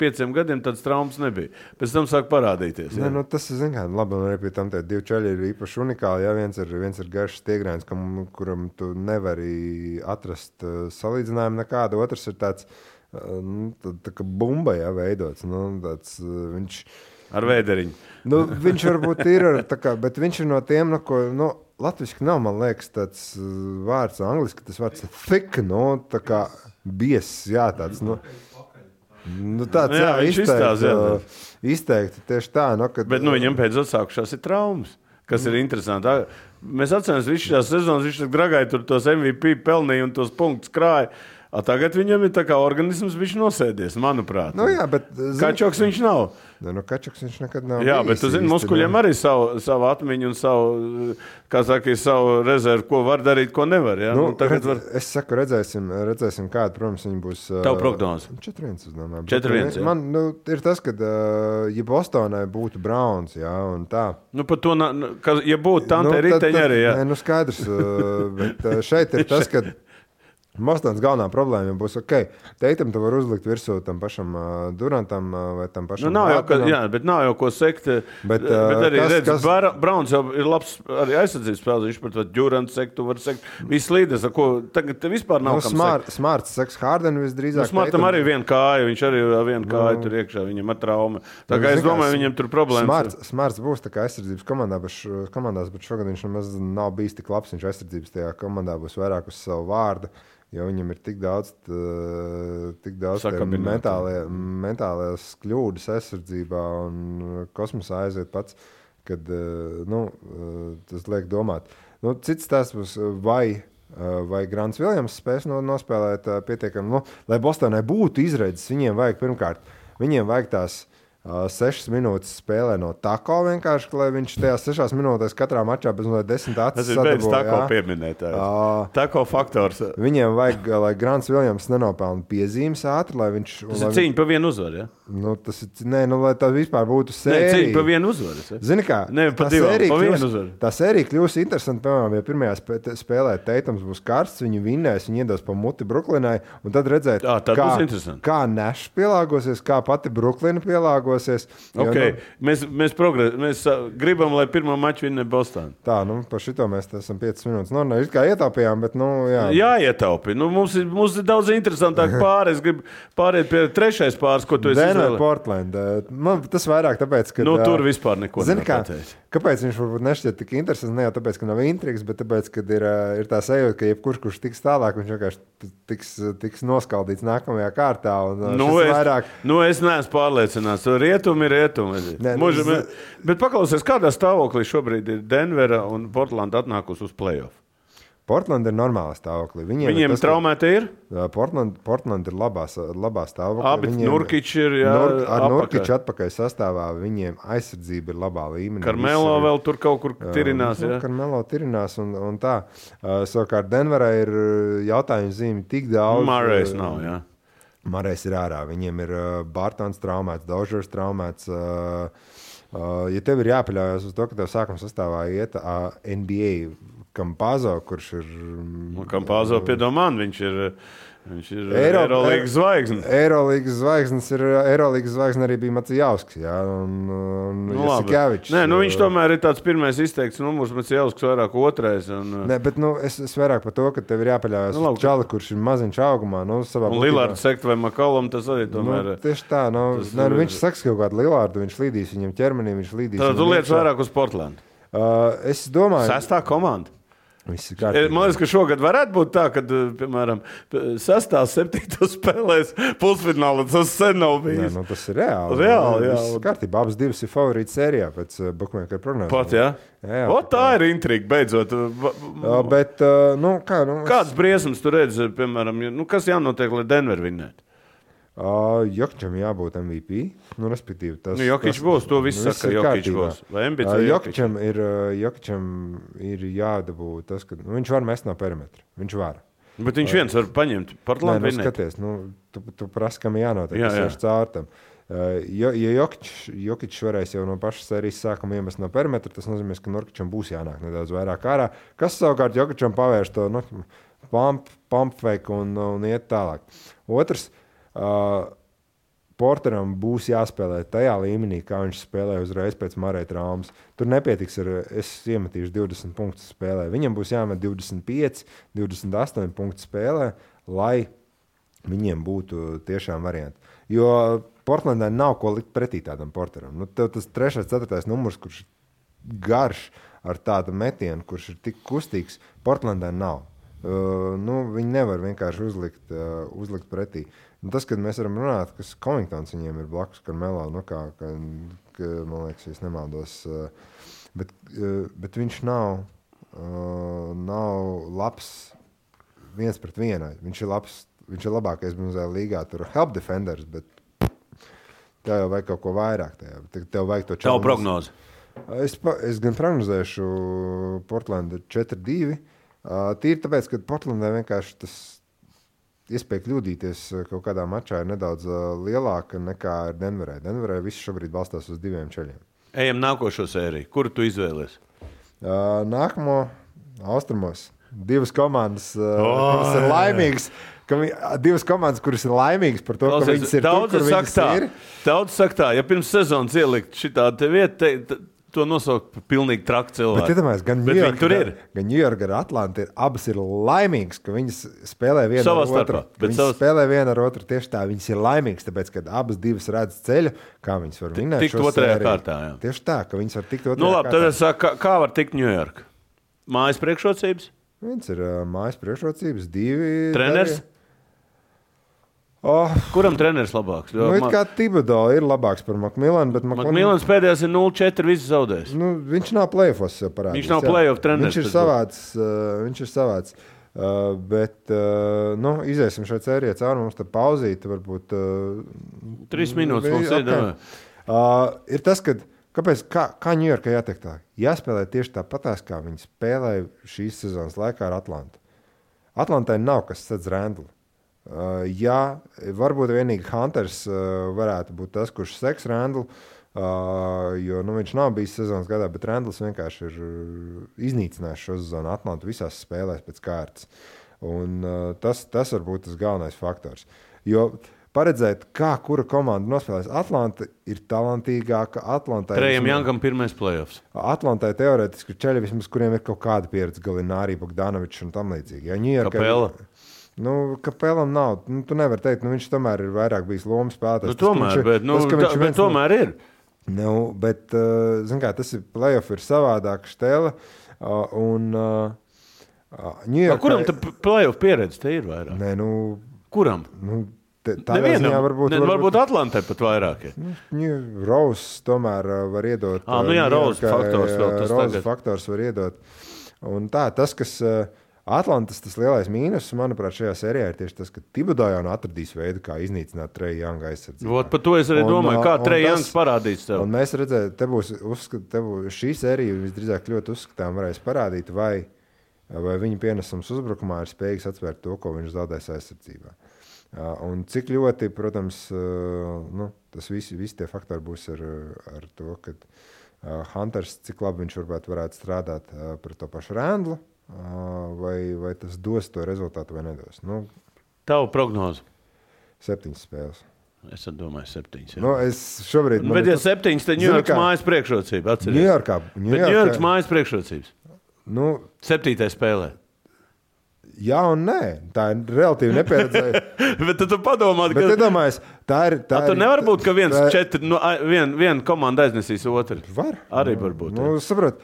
5 gadiem tāds traumas nebija. Pēc tam sāk parādīties. Tas ir, labi, un arī pie tam tie 2 čaļi ir īpaši unikāli. Ja? Viens ir garš stiegrēns, kuram tu nevari atrast salīdzinājumu nekādu. Otrs ir tāds... tā kā bumba, jā, veidots. Viņš... Ar vēderiņu. Viņš varbūt ir, bet viņš ir no tiem, latviski nav, man liekas, tāds vārds, angliski tas vārds thick, tā kā bies, jā, tāds, tāds, jā, izteikti tieši tā, kad... Bet, viņam pēc atsākušās ir traumas, kas ir interesanti. Mēs atceramies visu šās sezonas, viņš gragāja tur tos MVP pelnīja un tos punktus krāja. Tagad viņam ir tā kā organisms viņš nosēdies, manuprāt. Jā, bet... Kačoks viņš nav. Kačoks viņš nekad nav. Jā, bet tu zini, muskuļiem arī savu atmiņu un savu rezervu, ko var darīt, ko nevar. Ja? Es saku, redzēsim kādu, protams, viņi būs... Tavu prognozi? 4-1, es domāju. 4-1, jā. Man, ir tas, kad, ja Bostonai būtu Browns, jā, un tā. Par to, ja būtu Tante Riteņa arī, jā. Skaidrs, bet šeit ir tas, kad... Bostonas galvenā problēma būs, Teitam tu var uzlikt virsū tam pašam Durantam vai tam pašam bet nav jau ko sekt. Bet arī redz, Browns jau ir labs arī aizsardzības spēles, viņš par to Durant sekt, tu var sekt. Viss līdes, ar ko tagad te vispār nav kam sekt. Smarts seks Harden visdrīzāk. Smartam arī viena kāja, viņš arī viena kāja tur iekšā, viņam ar traumu. Tā kā es domāju, viņam tur problēmas. Smarts būs tā kā aizsardzības komandās, bet šogad viņš nemaz nav bijis tik labs, viņš aizsardzības tajā komandā būs vairāk uz savu vārdu. Jo viņam ir tik daudz mentālās kļūdas aizsardzībā un kosmosā aiziet pats, kad tas liek domāt. Cits tās būs, vai Grants Viljams spēs nospēlēt pietiekami, lai Bostonai būtu izredzes, viņiem vajag tās 6 minūtes spēlē no Tako vienkārši, lai viņš tajās 6 minūtēs katrā mačā bez 10 acis sadabūja. Tas ir beidz Tako pieminētājs. Tako faktors. Viņiem vajag, lai Grants Viljams nenopelna piezīmes ātri, lai viņš... Tas ir cīņa pa vienu uzvaru, ja? Tas ir, lai tā vispār būtu sērija. Cīņa pa vienu uzvaru, ja? Zini kā? Pa vienu uzvaru. Tā sērija kļūs interesanti, piemēram, ja pirmajā spēlē Teitams būs karsts, viņi vinnēs, viņi iedos pa muti Brooklynai, un tad redzēt, kā Nash pielāgosies, kā pati Brooklyn pielāgosies. pielāgosies. Okay. Mēs gribam, lai pirmo maču vinnē Boston. Tā, par šito mēs esam 5 minūtes. It kā ietaupījām, bet, jā. Jāietaupi. Mums ir daudz interesantāk pāri. Es gribu pāriet pie trešais pāris, ko tu esi izvēlējies. Denver, Portland. Man tas vairāk tāpēc, ka... tur vispār neko nepateicis. Kāpēc viņš varbūt nešķiet tik interesants? Ne jau tāpēc, ka nav intrigas, bet tāpēc, ka ir tā sajūta, ka kurš tiks tālāk, viņš vienkārši tiks noskaldīts nākamajā kārtā. Es neesmu pārliecināts. Rietumi ir rietumi. Bet paklausies, kādā stāvoklī šobrīd ir Denvera un Portland atnākusi uz playoff? Portland ir normālā stāvoklī. Viņiem traumēti ir? Portland ir labā stāvoklī. Abi Nurkiči ir ar Nurkiču atpakaļ sastāvā. Viņiem aizsardzība ir labā līmenī. Karmelo vēl tur kaut kur tirinās. Karmelo tirinās un tā. Savukārt Denverā ir jautājumu zīmi tik daudz. Murray's nav, jā. Murray's ir ārā. Viņiem ir Bartons traumēts, Dožers traumēts. Ja tev ir jāpaļaujas uz to, ka tev sākuma sastāvā iet NBA Campazzo, kurš ir... Campazzo, piedomān, viņš ir Eirolīgas zvaigznes. Eirolīgas zvaigzne arī bija Macijausks, jā, un Jasikevičs. Viņš tomēr ir tāds pirmais izteikts numurs, Macijausks vairāk otrais. Nē, bet es vairāk par to, ka tev ir jāpaļaujas uz čali, kurš ir maziņš augumā. Un Lillards sekt vai Makalom, tas arī tomēr... Tieši tā, viņš saks kaut kādu Lillardu, viņš līdīs viņam ķermenī, viņš līdīs... Tad tu lietas vairāk uz Portland. Es domāju... 6. komanda. Man liekas, ka šogad varētu būt tā, ka, piemēram, 6. 7. spēlēs pusfinālā tas sen nav bijis. Nē, tas ir reāli. Reāli. Kārtībā, abas divas ir favorīti sērijā pēc bookmaker prognozēm. Pat, jā? Tā ir intriga, beidzot. Bet, kāds briesmas tu redzi, piemēram, kas jānotiek, lai Denver vinnētu? Jokičam jābūt MVP. Respektīvi, Jokič būs, to viss saka, Jokič būs. Vai Embids vai Jokičam ir jādabū tas, ka viņš var mest no perimetra. Viņš var. Bet viņš viens var paņemt. Portland vinnēt. Skaties, tu prasi, kam jānotiek. Tas ir caur tam. Ja Jokič varēs jau no pašas sērijas sākuma iemest no perimetra, tas nozīmē, ka Nurkičam būs jānāk nedaudz vairāk ārā. Kas savukārt Jokičam pavērš to pump fake un iet tālāk. Otrs, Porteram būs jāspēlē tajā līmenī, kā viņš spēlēja uzreiz pēc Murray traumas. Tur nepietiks es iemetīšu 20 punktus spēlē. Viņam būs jāmet 25, 28 punktu spēlē, lai viņiem būtu tiešām varianti. Jo Portlandē nav ko likt pretī tādam Porteram. Tev tas 3. 4. numurs, kurš ir garš ar tādu metienu, kurš ir tik kustīgs, Portlandē nav. Viņi nevar vienkārši uzlikt pretī. Tas, kad mēs varam runāt, kas Covingtons viņiem ir blakus Karmelo, man liekas, es nemaldos, bet viņš nav labs 1-1. Viņš ir labākais mazajā līgā, tur help defenders, bet tev jau vajag kaut ko vairāk. Tev vajag to čalmas. Tavu prognozi? Es gan prognozēšu Portlandu 4-2. Tīri tāpēc, ka Portlandē vienkārši tas iespēja kļūdīties kaut kādā mačā ir nedaudz lielāka nekā ir Denverē. Denverē viss šobrīd balstās uz 2 ceļiem. Ejam nākošo sēriju. Kuru tu izvēlies? Nākamo austrumos. 2 komandas, kuras ir laimīgas. Divas komandas, kuras ir laimīgas par to, ka viņas ir tur, kur viņas ir. Daudz saka tā, ja pirms sezonas ielikt šitā te vieta, to nosaukt par pilnīgi traku cilvēku. Bet iedomājies, gan New York, gan Atlanta abas ir laimīgas, ka viņas spēlē viena ar otru. Spēlē viena ar otru tieši tā. Viņas ir laimīgas, tāpēc, ka abas divas redz ceļu, kā viņas var vinēt šo sēriju. Tikt otrajā kārtā, jā. Tieši tā, ka viņas var tikt otrajā kārtā. Tad es saku, kā var tikt New York? Mājas priekšrocības? Viens ir mājas priekšrocības, 2... Treneris? Kuram treneris labāks? Kā Thibodeau ir labāks par McMillanu, bet McMillans pēdējās ir 0-4, viss zaudējis. Viņš nav play-offos jau parādījis. Viņš nav play-off treneris. Viņš ir savāds. Bet iziesim šai sērijai cauri, mums te pauzīt, varbūt... 3 minūtes mums ir. Ir tas, kā New Yorkai jātiek tā. Jāspēlē tieši tāpatās, kā viņi spēlēja šīs sezonas laikā ar Atlantu. Atlantai nav kas sedz Randlu. Jā, varbūt vienīgi Hunters varētu būt tas, kurš seks Randlu, jo viņš nav bijis sezonas gadā, bet Randls vienkārši ir iznīcinājis šo sezonu Atlantu visās spēlēs pēc kārtas. Un tas var būt tas galvenais faktors. Jo paredzēt, kā kura komanda nospēlēs. Atlanta ir talantīgāka. Trejam Jankam pirmais playoffs. Atlantai teorētiski ceļi vismaz, kuriem ir kaut kāda pieredze, Galinārī, Bogdanovičs un tam līdzīgi. Ja, Kapela. Kapelam nav. Tu nevari teikt, viņš tomēr ir vairāk bijis lomas spēlētājs. Tomēr ir. Bet, zin kā, tas ir playoff ir savādāk štēle. Kuram tā playoff pieredze te ir vairāk? Nē, Kuram? Nevienam. Varbūt Atlantai pat vairāk ir. Rose tomēr var iedot. Rose faktors vēl tas Rose tagad. faktors var iedot. Un tas, kas Atlantas tas lielais mīnus, manuprāt, šajā sērijā ir tieši tas, ka Thibodeau jau atradīs veidu, kā iznīcināt Trae Younga aizsardzību. Par to es arī domāju, kā Trae Youngs parādīs tev. Un mēs redzējām, te būs šī sērija visdrīzāk ļoti uzskatām varēs parādīt, vai viņa pienesums uzbrukumā ir spējīgs atsvērt to, ko viņš zaudēs aizsardzībā. Un cik ļoti, protams, tas visi tie faktori būs ar to, ka Hunters, cik labi viņš varētu strādāt par to pašu Randlu, vai tas dos to rezultātu vai nedos. Tavu prognozu? 7 spēles. Es domāju 7. Es šobrīd... Bet ja 7, tad Ņujorkas mājas priekšrocība. Ņujorkas mājas priekšrocības. 7. spēlē. Jā un nē. Tā ir relatīvi nepieredzēja. Bet tu padomā, ka... Bet iedomājies, tā ir... Tur nevar būt, ka viena komanda aiznesīs otru. Var. Arī var būt. Saprot,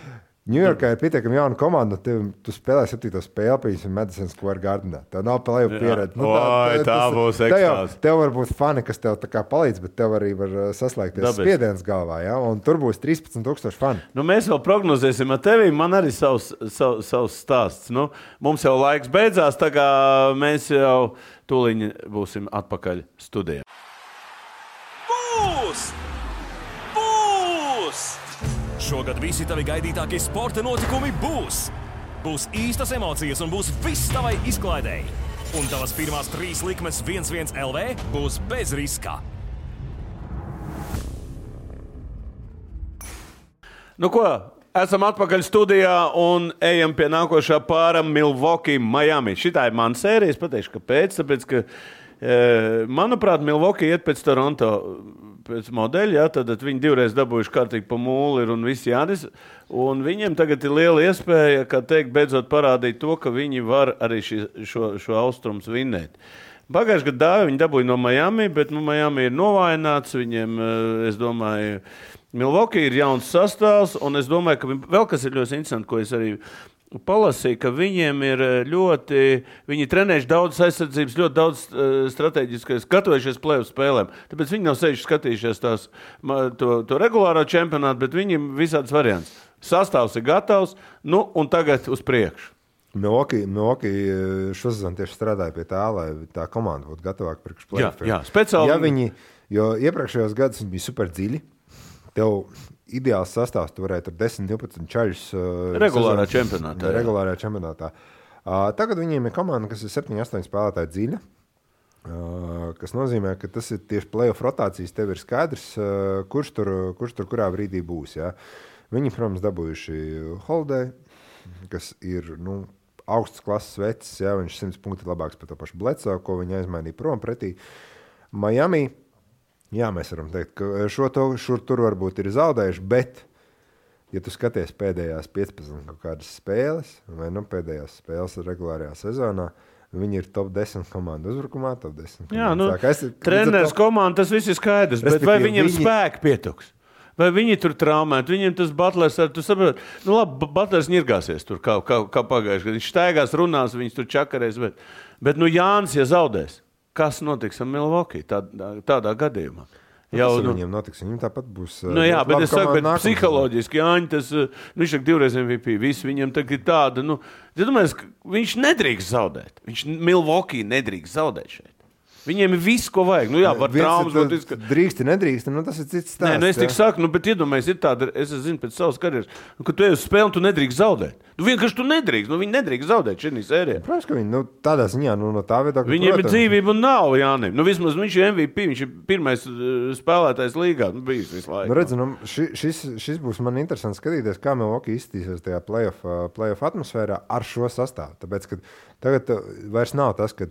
Ņujorkā ir pietiekami jauna komanda, tu spēlē 7. spēli, piemēram, Madison Square Gardenā. Tā nav playoff pieredze. Tā būs ekstāze. Tev var būt fani, kas tev tā kā palīdz, bet tev arī var saslēgties spiediens galvā, ja? Un tur būs 13,000 fani. Mēs vēl prognozēsim ar tevi, man arī savs stāsts. Mums jau laiks beidzās, tā kā mēs jau tūliņ būsim atpakaļ studijā. Šogad visi tavi gaidītākie sporta notikumi būs. Būs īstas emocijas un būs viss tavai izklaidēji. Un tavas pirmās 3 likmes 1-1 LV būs bez riska. Ko? Esam atpakaļ studijā un ejam pie nākošā pāra Milwaukee, Miami. Šitā ir mana sērija, es pateikšu, kāpēc. Tāpēc, ka, manuprāt, Milwaukee iet pēc Toronto pēc modeļa, tad viņi divreiz dabūjuši kārtīgi pa mūli un visi Jānis. Un viņiem tagad ir liela iespēja, kā teikt, beidzot parādīt to, ka viņi var arī šo austrums vinnēt. Pagājušajā gadā viņi dabūja no Miami, bet Miami ir novājināts. Viņiem, es domāju, Milwaukee ir jauns sastāvs, un es domāju, ka vēl kas ir ļoti interesanti, ko es arī palasīju, ka viņiem ir viņi trenējuši daudz aizsardzības, ļoti daudz strateģiskais, gatavojušies playoff spēlēm. Tāpēc viņi nav sevišķi skatījušies to regulāro čempionātu, bet viņiem visāds variants. Sastāvs ir gatavs, un tagad uz priekšu. Milwaukee šosezon tieši strādāja pie tā, lai tā komanda būtu gatavāka priekš playoffiem. Jā, speciāli. Jo iepriekšējos gados viņi bija super dziļi. Tev ideāls sastāvs, tu varētu ar 10-12 čaļus regulārā čempionātā. Tagad viņiem ir komanda, kas ir 7-8 spēlētāji dziļa, kas nozīmē, ka tas ir tieši playoff rotācijas, tev ir skaidrs, kurš tur kurā brīdī būs. Ja? Viņi, protams, dabūjuši Holiday, kas ir augsts klases vecs, ja? Viņš 100 punkti labāks par to pašu Bledsoe, ko viņi aizmainīja prom pretī. Miami. Jā, mēs varam teikt, ka šur tur varbūt ir zaudējuši, bet, ja tu skaties pēdējās 15 kaut kādas spēles, vai pēdējās spēles regulārajā sezonā, viņi ir top 10 komandu uzbrukumā, top 10 komandu. Jā, treneris komanda, tas viss ir skaidrs, bet vai viņiem spēki pietuks? Vai viņi tur traumēt? Viņiem tas Butlers, tu saproti, labi, Butlers ņirgāsies tur kā pagājuši, kad viņš staigās, runās, viņus tur čakarēs, bet Jānis, ja zaudēs, kas notiks ar Milwaukee tādā gadījumā? Viņiem notiks, viņiem tāpat būs... jā, bet es saku, psiholoģiski Jāņi, viņš ir 2 MVP, visi viņam tagad tāda, viņš nedrīkst zaudēt. Milwaukee nedrīkst zaudēt šeit. Viņiem ir viss, ko vajag. Var traumas. Drīksti, nedrīksti, tas ir cits stāsts. Nē, es tik saku, bet iedomājies, ir tāda, es zinu pēc savas karjeras, ka tu ej uz spēli un tu nedrīkst zaudēt. Vienkārši tu nedrīkst, viņi nedrīkst zaudēt šī sērijā. Protams, ka viņi, tādā ziņā, no tā viedokļa. Viņiem ir dzīvība un nav, Jānim. Vismaz viņš ir MVP, viņš ir pirmais spēlētājs līgā, bijis visu laiku. Redz, šis būs man interesanti skatīties, kā Milwaukee izskatīsies tajā playoff atmosfērā ar šo sastāvu. Tāpēc, ka tagad vairs nav tas, ka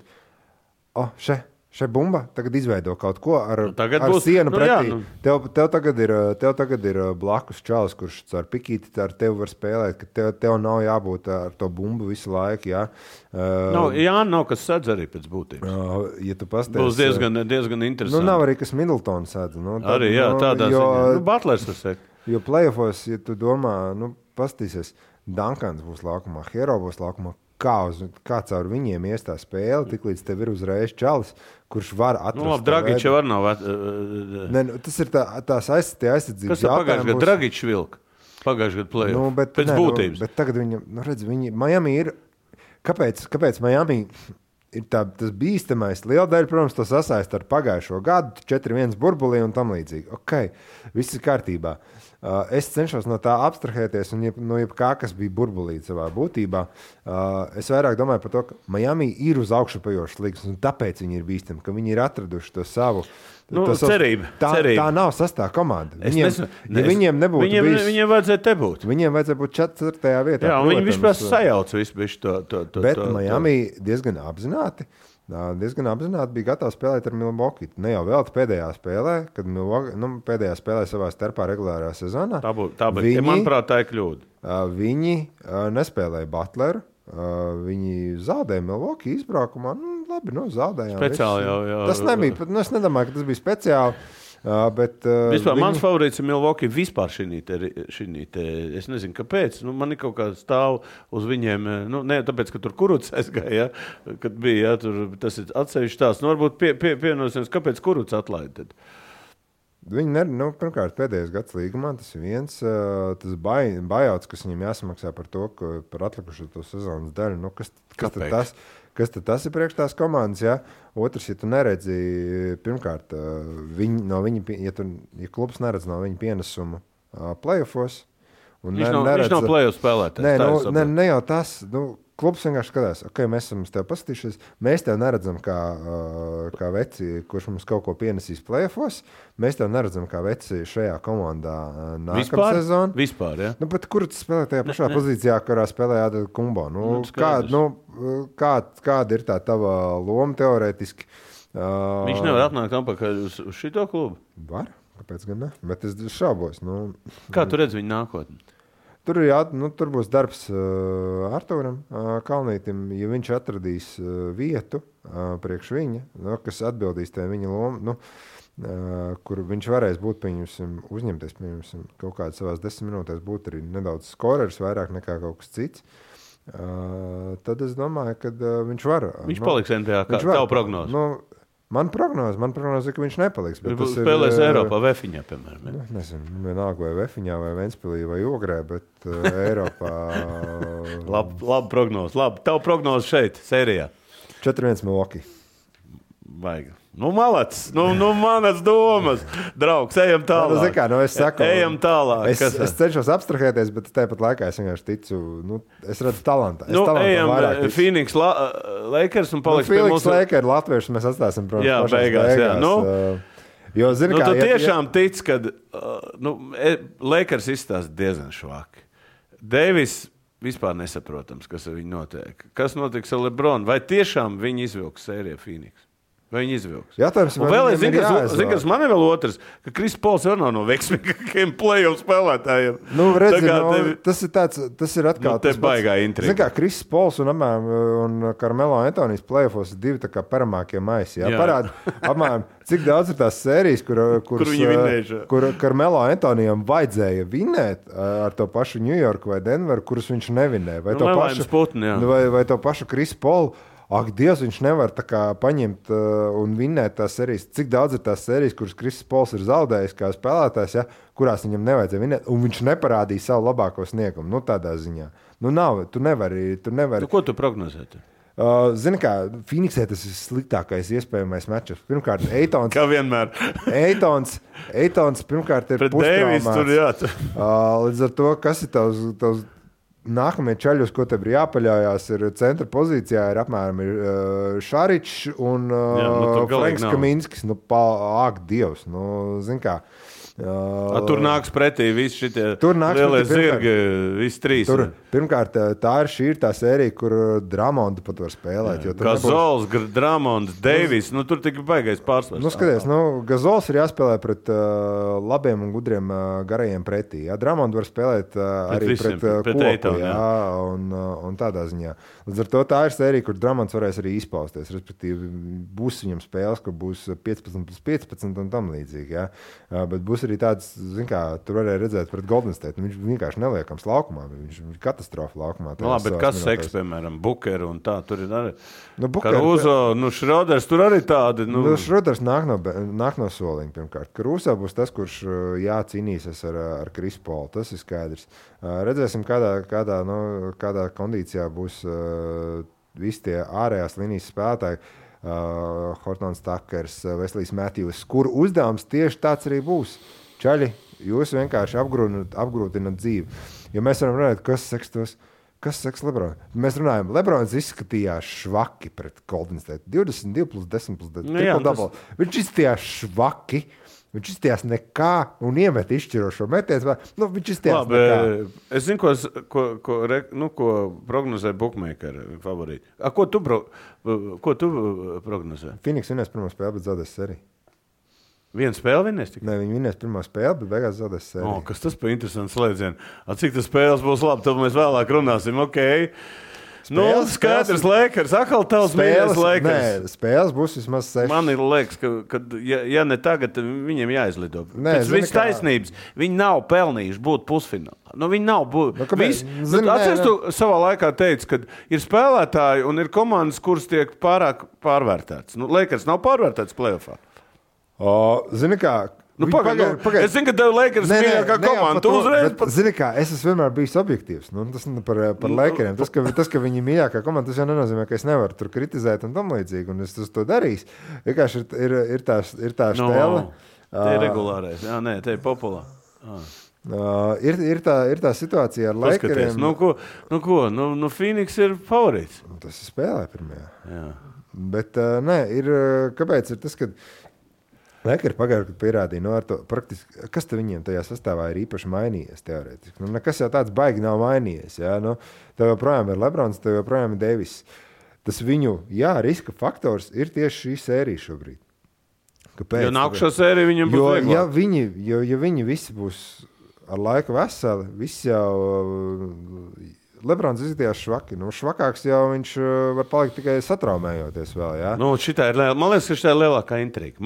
Šai bumba tagad izveido kaut ko ar būs, sienu pretī. Jā, Tev tagad ir blakus čalis, kurš ar pikīti ar tevi var spēlēt, ka tev nav jābūt ar to bumbu visu laiku. Jā, nav kas sēdz arī pēc būtības. Ja tu pasties, būs diezgan interesanti. Nav arī kas Middletons sēdz. Arī, jā, tādā ziņā. Butlers var sēkt. Jo playoffos, ja tu domā, pastīsies, Duncans būs laukumā, Hero būs laukumā. Kā caur viņiem iestā spēle, tik līdz tev ir uzreiz čalis, kurš var atrast. Dragičs var nav. Tas ir tās aizsardzības jautājums. Kas tā pagājušajā gadā Dragičs vilka? Pagājušajā gadā play-off. Pēc būtības. Bet tagad viņam, Miami ir, kāpēc Miami ir tas bīstamais? Liela daļa, protams, to sasaist ar pagājušo gadu, 4-1 burbulī un tam līdzīgi. Ok, viss ir kārtībā. Es cenšos no tā abstrahēties, un no jebkā, kas bija burbulī savā būtībā, es vairāk domāju par to, ka Miami ir uz augšupajošas līgas, un tāpēc viņi ir bīstami, ka viņi ir atraduši to savu cerību. Tā nav sastā komanda. Viņiem nebūtu bijis. Viņiem vajadzēja te būt. Viņiem vajadzēja būt 4. vietā. Jā, un viņi vispār sajauca visu to. Bet Miami diezgan apzināti bija gatavs spēlēt ar Milwaukee. Ne jau vēl pēdējā spēlē, kad pēdējā spēlē savā starpā regulārā sezonā. Tā bija, manuprāt, tā ir kļūda. Viņi nespēlēja Butleru. Viņi zaudēja Milwaukee izbraukumā. Labi, zaudējām. Speciāli jau. Tas nebija, es nedomāju, ka tas bija speciāli. Bet, vispār mans favorīts ir Milwaukee vispār šī te. Es nezinu, kāpēc. Man ir kaut kā stāv uz viņiem. Ne tāpēc, ka tur Kurucs aizgāja, kad bija, tas ir atsevišķi tās. Varbūt pienosimies, kāpēc Kurucs atlaida tad? Viņi pirmkārt, pēdējais gads līgumā, tas ir viens, tas buyouts, kas viņiem jāsamaksā par to, par atlikušo to sezonas daļu. Kas tad tas ir priekš tās komandas? Ja? Otrs, ja tu neredzi, pirmkārt, ja klubs neredz no viņa pienesumu playoffos. Viņš nav playoff spēlētājs. Ne jau tas. Klubs vienkārši skatās, ok, mēs esam tev paskatījušies, mēs tev neredzam kā veci, kurš mums kaut ko pienesīs playoffos, mēs tev neredzam kā veci šajā komandā nākamā sezona. Vispār, ja? Bet kur tu spēlē tajā pašā pozīcijā, kurā spēlē Adel Kumbo? Kāda ir tā tava loma teorētiski? Viņš nevar atnākt atpakaļ uz šito klubu? Var, kāpēc gan ne? Bet es šaubos. Kā tu redzi viņa nākotni? Tur būs darbs Artūram Kalnītim, ja viņš atradīs vietu priekš viņa, kas atbildīs tajā viņa lomu, kur viņš varēs būt, uzņemties, kaut kādā savās 10 minūtēs būt arī nedaudz skorers, vairāk nekā kaut kas cits. Tad es domāju, ka viņš var. Viņš paliks NBA, kā tavu prognozi? Man prognoze, ka viņš nepaliks. Viņš spēlēs Eiropā, Vefiņā, piemēram. Nezinu, vienalga vai Vefiņā, vai Ventspilī, vai Ogrē, bet Eiropā... Labi prognoze. Tavu prognoze šeit, sērijā. 4-1 Milwaukee. Vajag. Malacis, manas domas. Draugs, ejam tālāk. Es saku, ejam tālāk. Es cenšos abstrahēties, bet tāpat laikā es vienkārši ticu, es redzu talantu. Ejam Phoenix Lakers un paliks pie mūsu... Phoenix Lakers Latviešus mēs atstāsim, protams, jā, beigās. Jo, zini kā... Tu tiešām tic, kad Lakers izstāsta diezgan švaki. Davis vispār nesaprotams, kas ar viņu notiek. Kas notiks ar LeBron? Vai tiešām viņi izvilks sēriju Phoenix? Vai viņi izvilks? Jātājums, un vēl es zinu, kas man ir vēl otrs, ka Kris Pols jau nav no veiksmīgākajiem play-off spēlētājiem. Tas ir atkal... Te baigā intriga. Zini kā, Kris Pols un Carmelo Antonijs play-offos ir divi tā kā paramākie maisi. Parāda, apmēram, cik daudz ir tās sērijas, kur Carmelo Antonijam vajadzēja vinēt ar to pašu New York vai Denveru, kurus viņš nevinēja. Vai to pašu Kris Polu. Ak, Dievs, viņš nevar tā kā paņemt un vinnēt tās sērijas. Cik daudz ir tās sērijas, kuras Kris Pols ir zaudējis kā spēlētājs, ja, kurās viņam nevajadzēja vinnēt, un viņš neparādīja savu labāko sniegumu. Tādā ziņā. Tu nevari. Ko tu prognozēji? Zini kā, Phoenixē tas ir sliktākais iespējamais matčups. Pirmkārt, Eitons. Kā vienmēr. Eitons pirmkārt ir pustraumāts. Līdz ar to, kas ir tavs nākamie čaļi, uz ko tev ir jāpaļaujās, ir centra pozīcijā, ir apmēram Šaričs un Franks Kaminskis. Ak, Dievs, zin kā. Tur nāks pretī visi šitie lielie zirgi, visi trīs. Pirmkārt, šī ir tā sērija, kur Dramondu pat var spēlēt. Gazols, Dramonds, Deivis, tur tik baigais pārsvars. Skaties, Gazols ir jāspēlē pret labiem un gudriem garajiem pretī. Dramondu var spēlēt arī pret kopu, un tādā ziņā. Līdz ar to tā ir sērija, kur Dramonds varēs arī izpausties. Respektīvi, būs viņam spēles, ka būs 15+15 un tam līdzīgi. Ja? Bet būs arī tāds, tur varēja redzēt pret Golden State. Viņš vienkārši neliekams laukumā. Viņš ir katastrofa laukumā. Bet kas seks, piemēram, Bukeru un tā, tur ir arī Karuzo, Šroders, tur arī tādi. Šroders nāk no soliņa, pirmkārt. Karuzo būs tas, kurš cīnīsies ar Chris Paul. Tas ir skaidrs. Redzēsim, kādā kondīcijā būs visi tie ārējās līnijas spēlētāji. Hortons Takers, Veslijs Matthews, kur uzdevums tieši tāds arī būs. Čaļi, jūs vienkārši apgrūtinat dzīvi. Jo mēs varam runāt, kas seks Lebron. Mēs runājam, Lebrons izskatījās švaki pret Golden State. 22+10+10. Viņš izskatījās švaki. Viņš izstījās nekā un iemet izšķirošo metienu. Viņš izstījās nekā. Es zinu, ko prognozē bookmakeri favorīti. Ko tu prognozē? Phoenix vinnēs pirmo spēli, bet zaudēs sēriju. Vienu spēli vinnēs? Nē, viņi vinnēs pirmo spēli, bet beigās zaudēs sēriju. Kas tas par interesantu slēdzienu? Cik tas spēles būs labi, tad mēs vēlāk runāsim. Okay. Skaidrs, Lakers. Atkal tavs mīļais Lakers. Nē, spēles būs vismaz 6. Man ir liekas, ka ja ne tagad, viņiem jāizlido. Pēc viss taisnības. Viņi nav pelnījuši būt pusfinālā. Viņi nav atceries, tu savā laikā teici, ka ir spēlētāji un ir komandas, kuras tiek pārāk pārvērtētas. Lakers nav pārvērtēts playoffā. Zini kā... Es zinu, ka tev Lakers mīļākā komanda. Zini kā, es esmu vienmēr bijis objektīvs. Tas par Lakeriem. Tas, ka viņi mīļākā komanda, tas jau nenozīmē, ka es nevaru tur kritizēt un tam līdzīgi. Un es to darīšu. Vienkārši ir tā štēle. Te ir regulārais. Jā, nē, te ir populāri. Ir tā situācija ar Lakeriem. Phoenix ir favorīts. Tas ir spēlē pirmajā. Jā. Bet kāpēc ir tas, ka Lakers pagājušajā gadā pierādīja, praktiski, kas viņiem tajā sastāvā ir īpaši mainījies teorētiski. Nekas jau tāds baigi nav mainījies. Ja? Tev joprojām ir Lebrons, tev joprojām ir Deivis. Tas viņu, riska faktors ir tieši šī sērija šobrīd. Kāpēc? Jo nākušā sērija viņam būs vieglāk. Ja viņi visi būs ar laiku veseli, visi jau... Lebrons izskatījās švaki. Švakāks jau viņš var palikt tikai satraumējoties vēl. Ja? Man liekas, ka šitā ir lielākā intriga,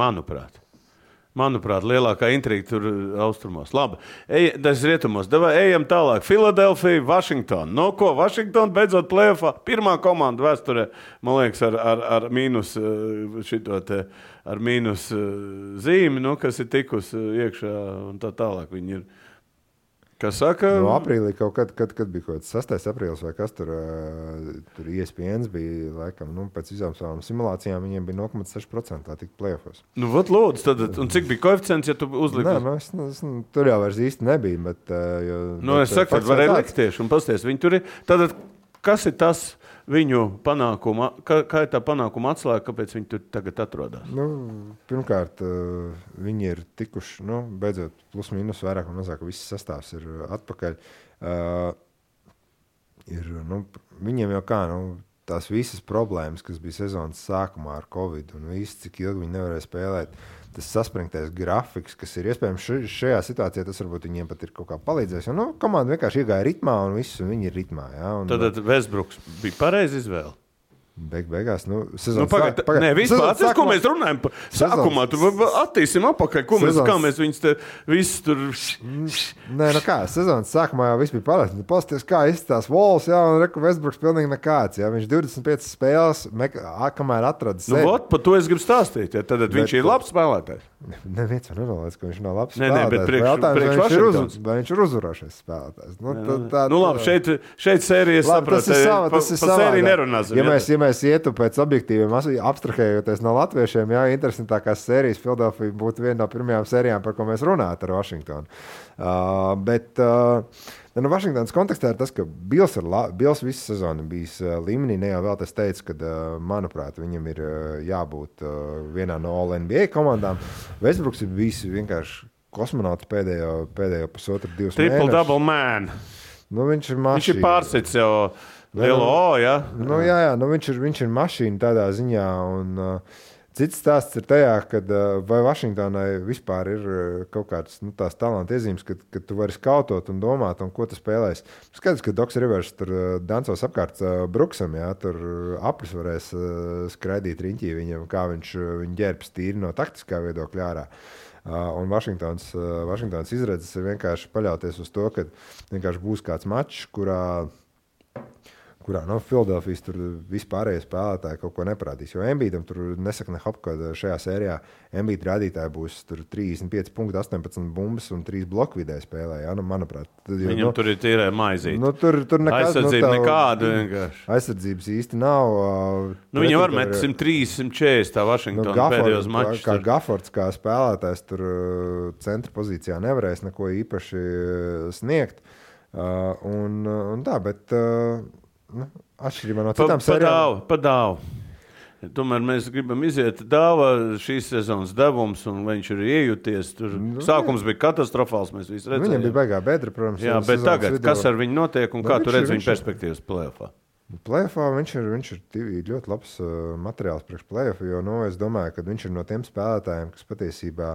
Manuprāt, lielākā intriga tur austrumos. Labi, tas rietumos. Ejam tālāk. Filadelfija, Vašingtona. Vašingtona beidzot play-offā. Pirmā komanda vēsturē, man liekas, ar mīnus ar mīnus zīmi, kas ir tikusi iekšā un tā tālāk. Viņi ir. Kas saka? Aprīlī kaut kad bija kaut kāds 6. aprīlis vai kas tur ESPN bija, laikam, pēc visām savām simulācijām viņiem bija 0,6% tā tik play-offos. Lūdzu, tad, un cik bija koeficients, ja tu uzliki? Nē, tur jau vairs īsti nebija, bet... es saku, tad varēja likt tieši un pasties. Viņi tur ir, tad, kas ir tas viņu panākuma, kā ir tā panākuma atslēga, kāpēc viņi tur tagad atrodas? Pirmkārt, viņi ir tikuši, beidzot, plus mīnus vairāk un mazāk, viss sastāvs ir atpakaļ. Viņiem jau kā, tās visas problēmas, kas bija sezonas sākumā ar Covid un viss, cik ilgi viņi nevarēja spēlēt, tas saspringtais grafiks, kas ir iespējams šajā situācijā, tas varbūt viņiem pat ir kaut kā palīdzējis. Komanda vienkārši iegāja ritmā un viss, un viņi ir ritmā. Ja? Tad Westbrooks bija pareizi izvēle. Beigās, vispār, ko mēs runājam par sākumā, tu attīsim apakaļ, kā mēs viņus te visus tur... Sezonas sākumā jau viss bija palēst. Pasties, kā izstās Walls, un reku Westbrooks pilnīgi nekāds, Viņš 25 spēles, kamēr atrada sevi. Par to es gribu stāstīt, tad viņš ir labs spēlētājs. Neviens jau nenolēdz, ka viņš nav labs spēlētājs. Vai viņš ir uzvarošais spēlētājs. Labi, šeit sērijas saprot, pa sēriju nerunāsim. Mēs ietu pēc objektīviem, abstrahējoties no latviešiem, interesantākās sērijas Philadelphia būtu viena no pirmajām sērijām, par ko mēs runājam ar Vašingtonu. Bet Vašingtonas kontekstā ir tas, ka Bills visu sezonu bijis līmenī. Ne jau vēl tas teica, ka, manuprāt, viņam ir jābūt vienā no All-NBA komandām. Westbrooks ir bijis vienkārši kosmonauts pēdējo pusotru, 2 mēnešus. Triple double man. Nu, viņš ir mašīna. Viņš ir pārsits jau lielo O, ja? Nu, jā, viņš ir mašīna tādā ziņā. Un, cits stāsts ir tajā, ka vai Vašingtonai vispār ir kaut kāds tās talanta iezīmes, ka tu vari skautot un domāt, un ko tu spēlēsi. Skaidrs, ka Doks Rivers tur dancos apkārt Bruksam, jā, tur aplis varēs skraidīt riņķī viņam, kā viņu ģērbs tīri no taktiskā viedokļa ārā. Un Vašingtons izredzes ir vienkārši paļauties uz to, ka vienkārši būs kāds mačs, kurā Filadelfijas tur vispārējie spēlētāji kaut ko neparādīs. Jo Embiidam tur nesaka ne hop, kad šajā sērijā Embiid rādītāji būs tur 35 punkti, 18 bumbas un 3 bloku vidē spēlē. Ja? Nu, manuprāt, viņam tur ir tīrē maizīt. Tur nekas, aizsardzība nekāda vienkārši. Aizsardzības īsti nav. Viņi var met 130, 140 tā Vašingtona pēdējos mačus. Kā Gafords, kā spēlētājs tur centra pozīcijā nevarēs neko īpaši sniegt. Un tā, bet... atšķirībā no citām sērijām. Pa dāvu. Tomēr mēs gribam iziet dāvā šīs sezonas devums, un viņš ir iejuties. Tur sākums bija katastrofāls, mēs visi redzējām. Viņam bija baigā bedra, protams. Jā, bet tagad, kas ar viņu notiek un kā tu redz viņa perspektīvas play-offā? Play-offā viņš ir ļoti labs materiāls priekš play-offu, jo es domāju, ka viņš ir no tiem spēlētājiem, kas patiesībā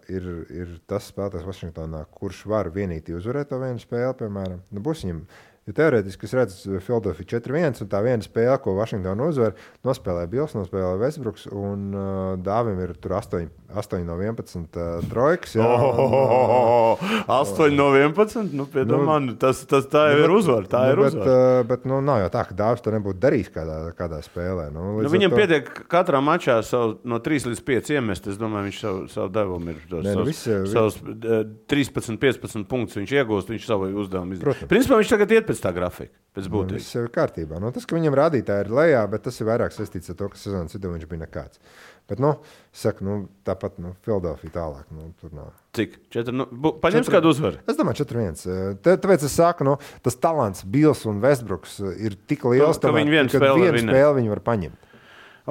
ir tas spēlētājs Vašingtonā, kurš var vienīgi uzvarēt to vienu spēli, piemēram. Būs viņam... Jo teorētiski es redzu Philadelphia 4-1, un tā viena spēle, ko Vašingtona uzvar, nospēlē Bills, nospēlē Westbrooks, un Dāvim ir tur 8 no 11 trojkas. 8 no 11? Nu, piedomā, tas tā jau ir uzvar. Tā ir uzvar. Bet nav jau tā, ka Dāvis to nebūtu darījis kādā spēlē. Viņam pietiek katrā mačā no 3 līdz 5 iemest. Es domāju, viņš savu devumu ir savus 13-15 punktus viņš iegūst, viņš savu uzdevumu izdarīt. Principā viņš tagad iet pēc tā grafika, pēc būtības. Viss ir kārtībā. Tas, ka viņam rādītāji ir lejā, bet tas ir vairāk saistīts ar to, ka sezonas vidū viņš bija nekāds. Bet, tāpat Philadelphia tālāk. Tur nav. Cik? Paņems kādu uzvaru? Es domāju, 4-1. Tāpēc es saku, tas talants Bills un Westbrooks ir tik liels, ka vienu spēli viņi var paņemt.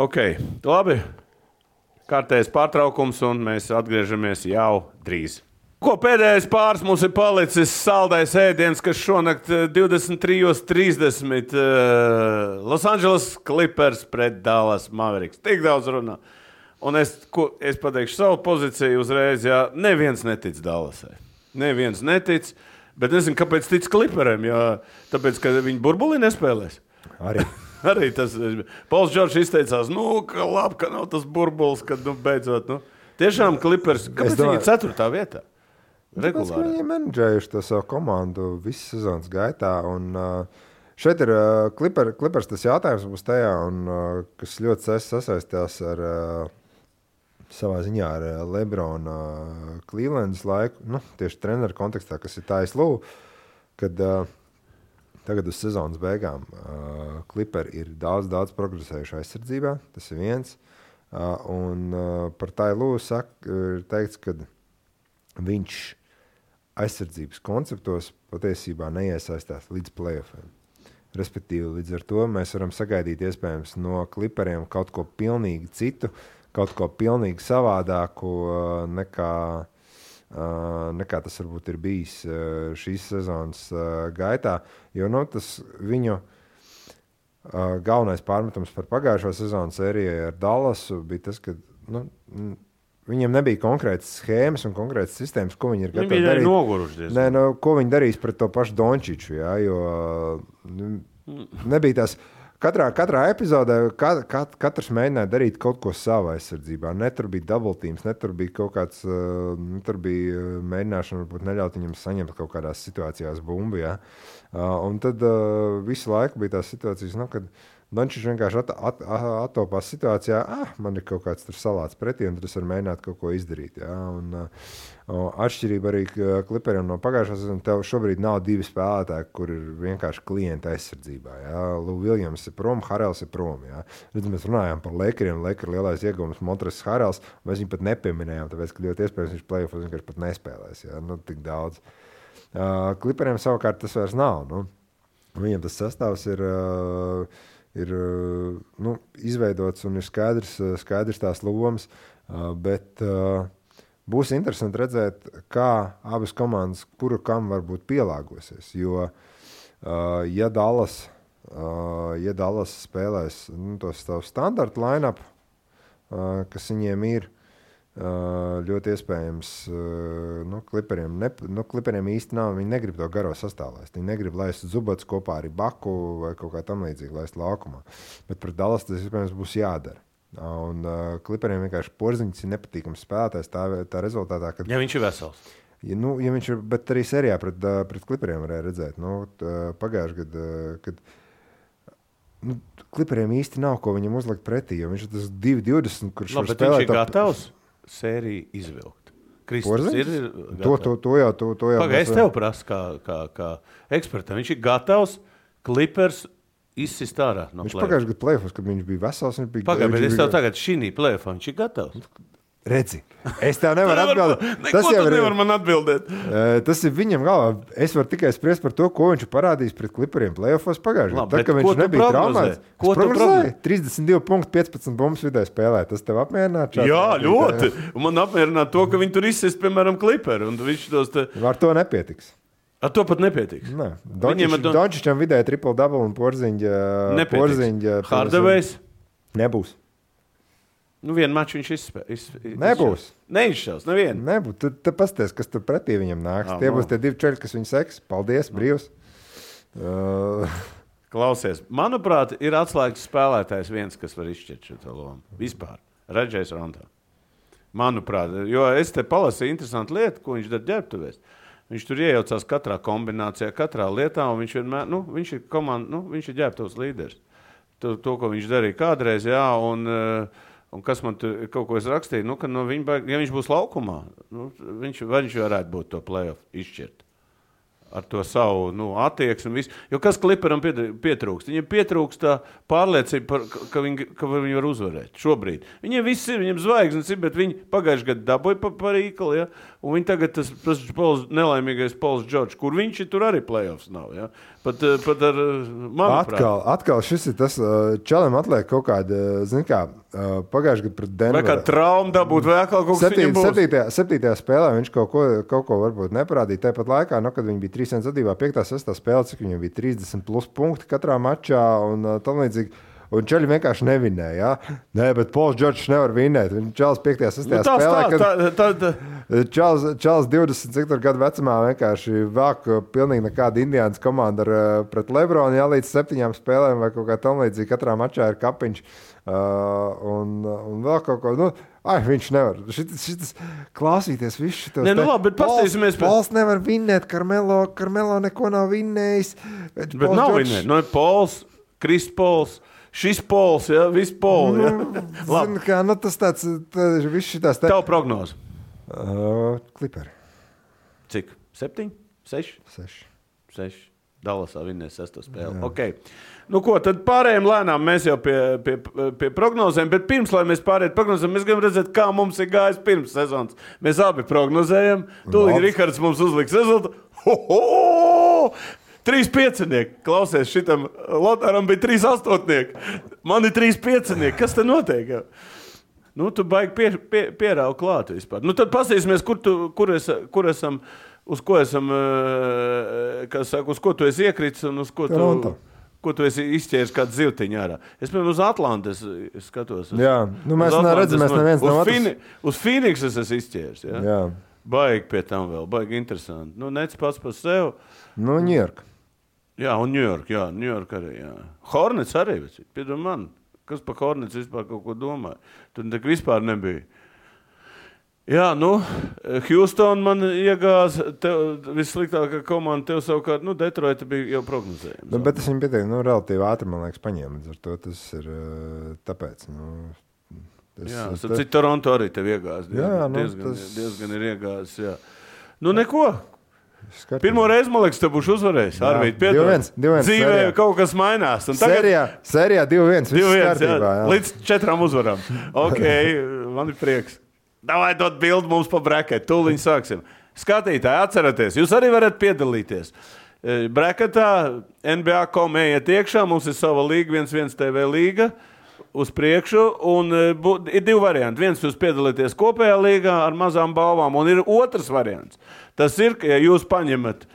Ok, labi. Kārtējais pārtraukums, un mēs atgriežamies jau drīz. Ko pēdējais pāris mums ir palicis saldais ēdiens, kas šonakt 23:30 Los Angeles Clippers pret Dallas Mavericks. Tik daudz runā. Un es pateikšu savu pozīciju uzreiz, jā, neviens netic Dallasai. Neviens netic, bet nezinu, kāpēc tic Clipperiem, jo tāpēc, ka viņi burbulī nespēlēs. Arī tas. Pauls Džordžs izteicās, ka labi, ka nav tas burbulis, kad beidzot. Tiešām Clippers, kāpēc viņi ir 4. vietā? Regulāri. Viņi ir menedžējuši to savu komandu visu sezonas gaitā. Un, šeit ir Clippers tas jautājums būs tajā, un, kas ļoti sasaistās ar savā ziņā ar Lebrona Clevelandas laiku, tieši treneru kontekstā, kas ir Tais Lū, kad tagad uz sezonas beigām Clipperi ir daudz progresējuši aizsardzībā, tas ir viens. Un par Tai Lū ir teikts, ka viņš aizsardzības konceptos patiesībā neiesaistās līdz play-offiem. Respektīvi, līdz ar to mēs varam sagaidīt iespējams no Clipperiem kaut ko pilnīgi citu, kaut ko pilnīgi savādāku nekā tas varbūt ir bijis šīs sezonas gaitā. Jo tas viņu galvenais pārmetums par pagājušo sezonu sērijai ar Dallasu bija tas, ka viņiem nebija konkrētas schēmas un konkrētas sistēmas, ko viņi ir gatavi darīt. Viņi bija noguruši. Ko viņi darīs pret to pašu Dončiču, jā, jo nebija tās. Katrā epizodē katrs mēģināja darīt kaut ko savā aizsardzībā. Ne tur bija double teams, ne tur bija kaut kāds, tur bija mēģināšana varbūt neļaut viņam saņemt kaut kādās situācijās bumbu, jā. Un tad visu laiku bija tās situācijas, kad Dončičs vienkārši attopās situācijā, man ir kaut kāds tur salāts pretī, un tas var mēģināt kaut ko izdarīt. Ja? Atšķirība arī Clipperiem no pagājušā sezonas, tev šobrīd nav 2 spēlētāji, kur ir vienkārši klienta aizsardzībā. Ja? Lou Williams ir prom, Harrells ir prom. Ja? Mēs runājām par Lakeriem, Laker lielais ieguvums Montrezl Harrells, mēs viņu pat nepieminējām, tāpēc, ka ļoti iespējams viņš play-offos vienkārši pat nespēlēs. Ja? Tik daudz. Clipperiem savukārt tas vairs nav. Viņiem tas sastāvs ir izveidots un ir skaidrs tās lomas, bet būs interesanti redzēt, kā abas komandas, kura kam varbūt pielāgosies. Jo, ja Dallas spēlēs tos standarta line-up, kas viņiem ir, ļoti iespējams, Kliperiem īsti nav, viņi negrib to garo sastāvlaist. Viņi negrib laist Zubats kopā ar Baku vai kaut kā tam līdzīgi laist laukumā. Bet pret Dallas tas iespējams būs jādara. Un Kliperiem vienkārši Porziņš ir nepatīkams spēlētājs tā rezultātā, kad... Ja viņš ir vesels. Ja viņš ir, bet arī serijā pret Kliperiem varēja redzēt. Pagājuši gadu, kad Kliperiem īsti nav, ko viņam uzlikt pretī, jo viņš ir tas 2-20, kurš var spēlēt... Viņš ir gatavs sēriju izvilkt. Kristus ir gatavs. To jau. Pagaid, es tev prasu kā ekspertam. Viņš ir gatavs Clippers izsist ārā no viņš pagājuši gadu play-offs, kad viņš bija vesels. Pagaid, bet es tev tagad šī play-offā, viņš ir gatavs. Redzi, es tev nevaru atbildēt. Tas jau nevar man atbildēt. Tas ir viņam galvā. Es varu tikai spriest par to, ko viņš parādījis pret Clipperiem play-offos pagājušajā gadā. Tā, ka viņš nebija traumēts. Ko tu prognozēji? 32 punkti, 15 bumbas vidē spēlē. Tas tev apmierinātu? Jā, ļoti. Un man apmierinātu to, ka viņi tur izsist, piemēram, Clipperi. Ar to nepietiks. Ar to pat nepietiks. Nē. Dončičam vidēji triple-double un Porziņģa. Hardaway's? Nebūs. Vienu maču viņš izspēlēs. Nebūs. Neizšķels, nevienu. Nebūs. Tu pasties, kas tur pretī viņam nāks. Tie būs tie divi čeļi, kas viņu seks. Paldies, brīvs. Klausies, manuprāt, ir atslēgas spēlētājs viens, kas var izšķirt šo lomu. Vispār. Redžējs Rondo. Manuprāt, jo es te palasīju interesantu lietu, ko viņš dara ģērbtuvēs. Viņš tur iejaucās katrā kombinācijā, katrā lietā, un viņš vienmēr, viņš ir komanda, viņš ir ģērbtuvs līderis. To, ko viņš darīja kādreiz, jā, un kas man tur kaut ko es rakstīju, ka ja viņš būs laukumā, viņš varētu būt to play-off izšķirt. Ar to savu attieksmi. Jo kas Clipperam pietrūkst? Viņam pietrūkst tā pārliecība, ka viņi var uzvarēt šobrīd. Viņiem viss ir, viņiem zvaigznes ir, bet viņi pagājuši gadu dabūja par īkali, ja? Un viņi tagad tas nelaimīgais Pauls Džordžs, kur viņš ir, tur arī play-offs nav. Ja? Pat ar manuprāt. Atkal šis ir tas, čalim atliek kaut kāda, pagājuši gadu pret Denveru. Vai kā trauma dabūt, vai atkal kaut kas viņam būs? 7. spēlē viņš kaut ko varbūt neparādīja. Tāpat laikā, kad viņi bija 3 zadībā, 5. 6. spēlē, cik viņam bija 30 plus punkti katrā mačā un tam līdzīgi. Un čaļi vienkārši nevinēja. Ja? Nē, bet Pauls Džordžs nevar vinēt. Čāls 5. 6. spēlē, Čāls 20 gadu vecumā vienkārši vāk pilnīgi nekāda Indiānas komanda pret Lebronu, ja līdz 7 spēlēm vai kaut kā tam līdzīgi. Katrā mačā ir kapiņš un vēl kaut ko. Viņš nevar. Šitas klausīties visu šitos. Labi, bet pastīsimies. Pauls nevar vinēt, Karmelo neko nav vinnējis. Bet nav vinēt. Pauls, Kris Pauls. Šis Pols, ja? Viss Pols, ja? Zini, kā, tas tāds, viss šitās... Tavu prognozu? Clipperi. Cik? 7? 6? 6. Dallasā vinnēs 6. spēli. Jā. Okay. Ko, tad pārējiem lēnām mēs jau pie prognozēm, bet pirms, lai mēs pārējiem prognozēm, mēs gribam redzēt, kā mums ir gājis pirms sezonas. Mēs abi prognozējam. Tūlīt Rihards mums uzliks rezultātu. 3 piecinieki. Klausies, šitam Lotāram bija 3 astoņnieki. Man ir 3 piecinieki. Kas te notiek? Tu baigi pierauj klāt vispār. Tad pasīsimies, kur esam, uz ko esam, uz ko tu esi iekritis un uz ko tu esi izķēris kādu zivtiņu ārā. Es, piemēram, uz Atlantas skatos. Jā, mēs redzam, mēs neviens nav otrs. Uz Phoenix es esmu izķēris. Ja? Jā. Baigi pie tam vēl, baigi interesanti. Nec pats par sev. New York. Jā, un New York arī, jā. Hornets arī, piedod man, kas par Hornets vispār kaut ko domāja. Tur tak vispār nebija. Jā, Houston man iegāz, vissliktākā komanda, tev savukārt, Detroita bija jau prognozējums. Bet es viņu pieteiktu, relatīvi ātri, man liekas, paņēma, ar to tas ir tāpēc, cik Toronto arī tev iegāz, diezgan ir iegāz, jā. Neko. Pirmo reizi, man liekas, te būšu uzvarējis. Arvīd, piedod. 2-1. Dzīvē kaut kas mainās. Un tagad... Sērijā 2-1. 2-1, jā. Līdz 4 uzvarām. Ok, man ir prieks. Davai dot bildi mums pa braketu. Tūliņ sāksim. Skatītāji, atceraties, jūs arī varat piedalīties. Braketā NBA.com ejiet iekšā. Mums ir sava līga, 1-1 TV līga. uz priekšu, un ir 2 varianti. Viens jūs piedalīties kopējā līgā ar mazām balvām, un ir otrs variants. Tas ir, ka ja jūs paņemat,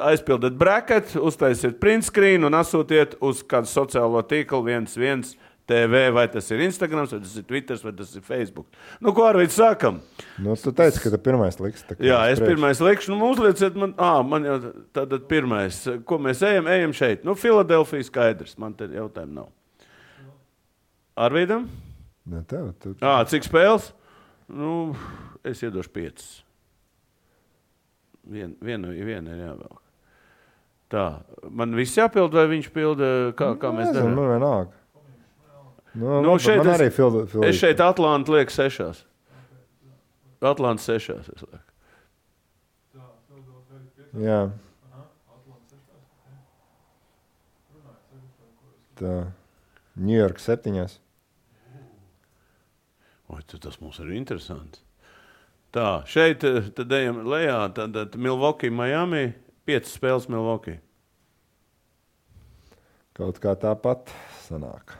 aizpildat bracket, uztaisiet print screen un asūtiet uz kādu sociālo tīklu 11 TV, vai tas ir Instagrams, vai tas ir Twitters, vai tas ir Facebook. Nu, ko Arvīds sākam? Nu, tu teici, ka tu pirmais liks. Jā, es pirmais likšu. Nu, uzlieciet man, man jau tātad pirmais. Ko mēs ejam šeit? Nu, Filadelfija skaidrs. Man te jautājumu nav. Arvīdam? Ne, tev. Cik spēles? Nu, es iedošu 5. Viena ir jāvēl. Tā, man viss jāpild, vai viņš pilda, kā mēs darām? Man vienalga. Nu, šeit man arī es šeit Atlantu lieku 6. Atlantu 6. es lieku. Jā. Tā. New York 7. Oi, tas mums ir interesants. Tā, šeit tad ejam lejā, tad Milwaukee, Miami, 5 spēles Milwaukee. Kaut kā tāpat sanāk.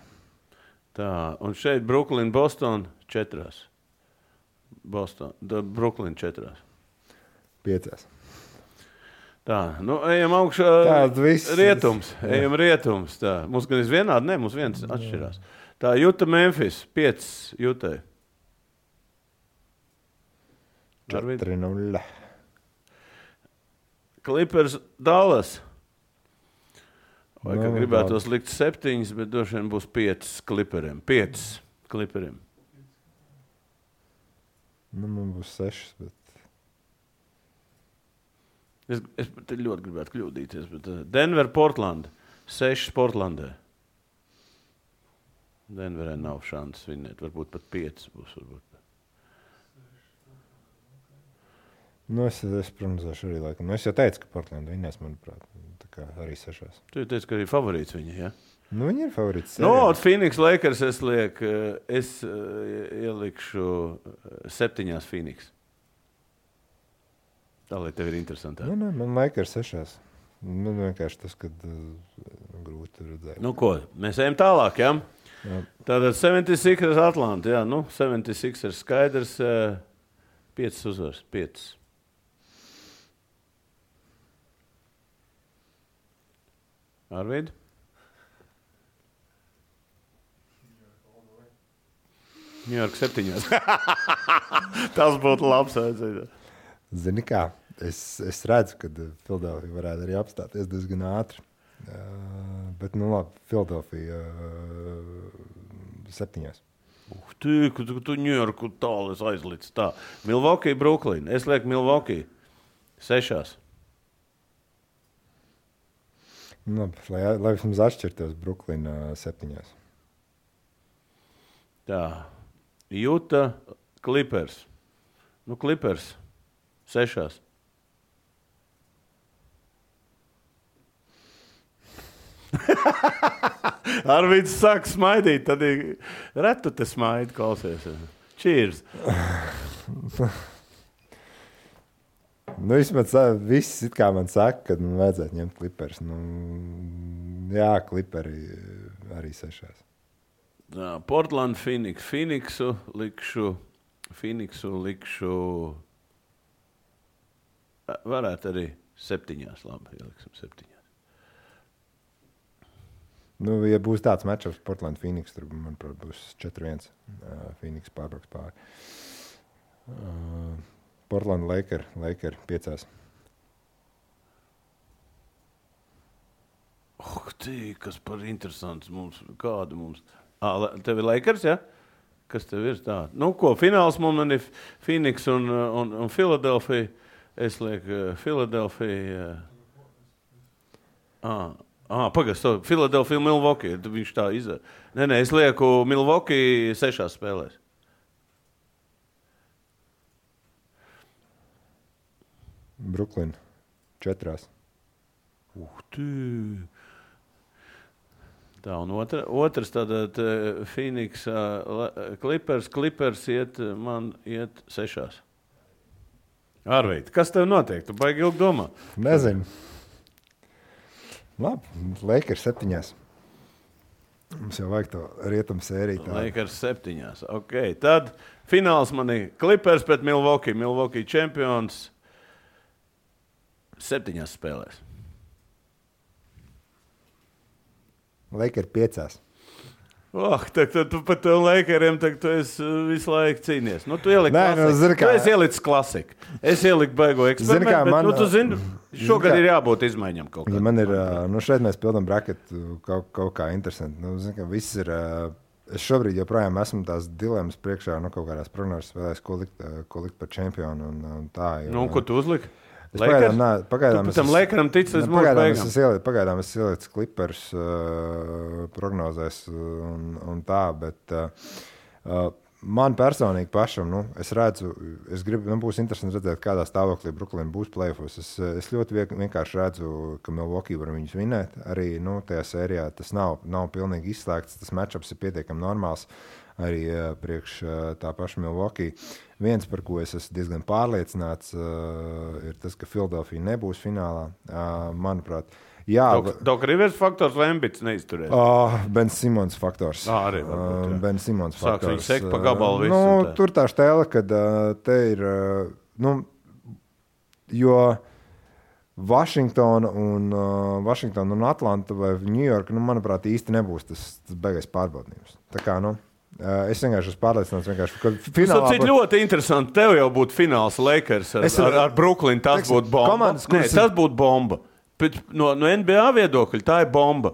Tā, un šeit Brooklyn, Boston 4. Brooklyn 4. 5. Tā, nu ejam augšā rietums. Ejam rietums. Tā. Mums gan vienādi, mums viens atšķirās. Tā, Utah, Memphis, 5 Utah. 4-0. Clippers, Dallas. Vai kā gribētos likt 7, bet droši vien būs 5 Clipperiem. 5 Clipperiem. Nu, man būs 6, bet... Es te ļoti gribētu kļūdīties, bet Denver, Portland. 6 Portlandē. Denverē nav šansas vinēt. Varbūt pat 5 būs. Varbūt. Nu, es prognozēšu arī laikam. Nu, es jau teicu, ka Portland vinnēs, manuprāt. Tā kā arī 6. Tu teici, ka arī favorīts viņa, ja? Nu, viņi ir favorīts. No, Phoenix Lakers es ielikšu 7 Phoenix. Tā, lai tev ir interesantāk. Nu, man Lakers 6. Man vienkārši tas, kad grūti redzēt. Nu, ko? Mēs ejam tālāk, ja? Jā. Tātad 76ers Atlanta, jā. Nu, 76ers skaidrs, 5 uzvars, 5. Arvīd? New York 7. Tas būtu labs. Zini kā, es redzu, ka Filadelfija varētu arī apstāties diezgan ātri. Bet, nu labi, Filadelfija 7. Tu New Yorku tālu aizlic. Tā. Milwaukee, Brooklyn. Es lieku Milwaukee 6. Labi, lai vismaz atšķirtos Brooklyn 7. Tā. Utah, Clippers. Nu, Clippers 6. Arvīds sāk smaidīt, tad retu te smaidi, klausies. Cheers! Nu, vismaz viss it kā man saka, ka vajadzētu ņemt Clippers. Nu, jā, Clipperi arī 6. Portland, Phoenixu likšu. Varētu arī 7. Labi, ieliksim 7. Nu, ja būs tāds matchups Portland, Phoenix, tur, manuprāt, būs 4-1. Phoenix pārbrauks pāri. Portland, Laker 5. Kas par interesants mums, kādu mums. Tev ir Lakers, ja? Kas tev ir tā? Nu, ko, fināls man ir Phoenix un Philadelphia. Es lieku Philadelphia. Pagaid, Philadelphia, Milwaukee. Viņš tā izdara. Nē, es lieku Milwaukee 6 spēlēs. Brooklyn 4. Tā, un otrs tātad Phoenix, Clippers man iet 6. Arvīd, kas tev notiek? Tu baigi ilgi domā? Nezinu. Labi, Lakers 7. Mums jau vajag to rietumu sēriju. Lakers 7. Okay. Tad fināls man ir Clippers pret Milwaukee. Milwaukee čempions 7 spēlēs. Lakers 5. Tu par to Lakeriem tu esi visu laiku cīnies. Nu, tu ieliki klasiku. Tu esi ielicis klasiku. Es ieliku baigo eksperimentu, bet tu zini, šogad ir jābūt izmaiņam kaut kā. Ja man ir, šeit mēs pildam braketu kaut kā interesanti. Viss ir, es šobrīd joprojām esmu tās dilemmas priekšā, kaut kādās prognozes spēlēs, ko likt par čempionu un tā. Ko tu uzliki? Pagaidām tu tam Lakeram tici līdz mūsu beigām. Pagaidām es ielicu Clippers prognozēs un tā, bet man personīgi pašam, es redzu, būs interesanti redzēt, kādā stāvoklī Brooklyn būs play-offos. Es ļoti vienkārši redzu, ka Milwaukee var viņus vinēt. Arī tajā sērijā tas nav pilnīgi izslēgts, tas matchups ir pietiekami normāls. Arī priekš tā paša Milwaukee. Viens, par ko es esmu diezgan pārliecināts, ir tas, ka Philadelphia nebūs finālā. Manuprāt, Doc Rivers faktors vai Embits neizturēs? Ben Simons faktors. Arī varbūt, jā. Ben Simons faktors. Sāks viņu sekt pa gabalu visu. Tur tā štēle, kad te ir, jo Washingtona un Atlanta vai New York, manuprāt, īsti nebūs tas beigais pārbaudījums. Tā kā, es vienkārši esmu pārliecināts, ka finālā... Tas ir ļoti interesanti. Tev jau būtu fināls Lakers ar Brooklyn. Tas būtu bomba. Tas būtu bomba. No NBA viedokļa tā ir bomba.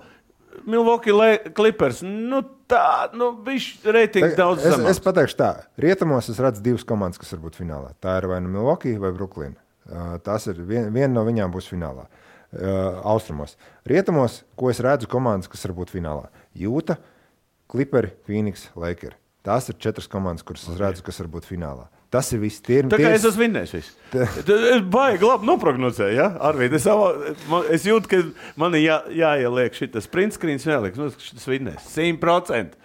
Milwaukee Clippers, viņš reitings daudz zemāks. Es pateikšu tā. Rietumos es redzu 2 komandas, kas var būt finālā. Tā ir vai Milwaukee vai Brooklyn. Tas ir viena no viņām būs finālā. Austrumos. Rietumos, ko es redzu komandas, kas var būt finālā. Jūta, Clipperi, Phoenix, Lakers. Tās ir 4 komandas, kuras es redzu, kas var būt finālā. Tas ir viss. Tā kā es esmu vinnējis visu. Es baigi labi noprognozēju, ja? Arvīd, es jūtu, ka man jāieliek šitas print screens, jāieliek, šitas vinnēs. 100%.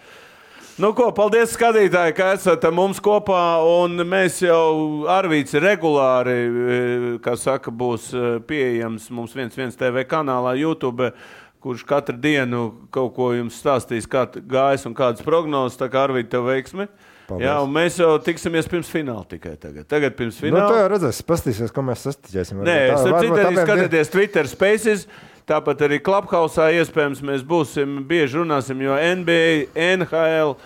Paldies skatītāji, ka esat mums kopā, un mēs jau Arvīds regulāri, kā saka, būs pieejams mums 1 TV kanālā YouTube, kurš katru dienu kaut ko jums stāstīs, kā gājas un kādas prognozes, tā kā Arvīd tev veiksmi. Paldies. Jā, un mēs jau tiksimies pirms fināla tikai tagad. Tagad pirms fināla. Tā jau redzēs, pastīsies, ko mēs sastiķēsim. Nē, arī skatieties Twitter Spaces, tāpat arī Clubhouse'ā iespējams mēs būsim, bieži runāsim, jo NBA, NHL,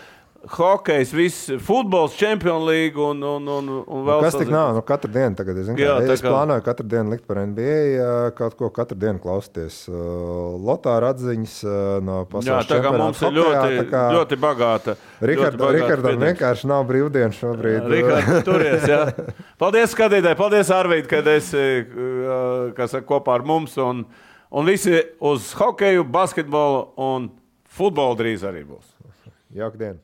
hokejs, viss, futbols, Champions League un vēl. Kas tik nav? Katru dienu tagad, es plānoju katru dienu likt par NBA, kaut ko katru dienu klausties. Lotāra atziņas no pasaules čempionāta. Jā, tā kā mums ir ļoti bagāta. Rikardam vienkārši nav brīvdienu šobrīd. Rikards, turies, jā. Paldies skatītāji, paldies Arvīd, kad esi kopā ar mums un visi uz hokeju, basketbolu un futbolu drīz arī būs. Jauka diena.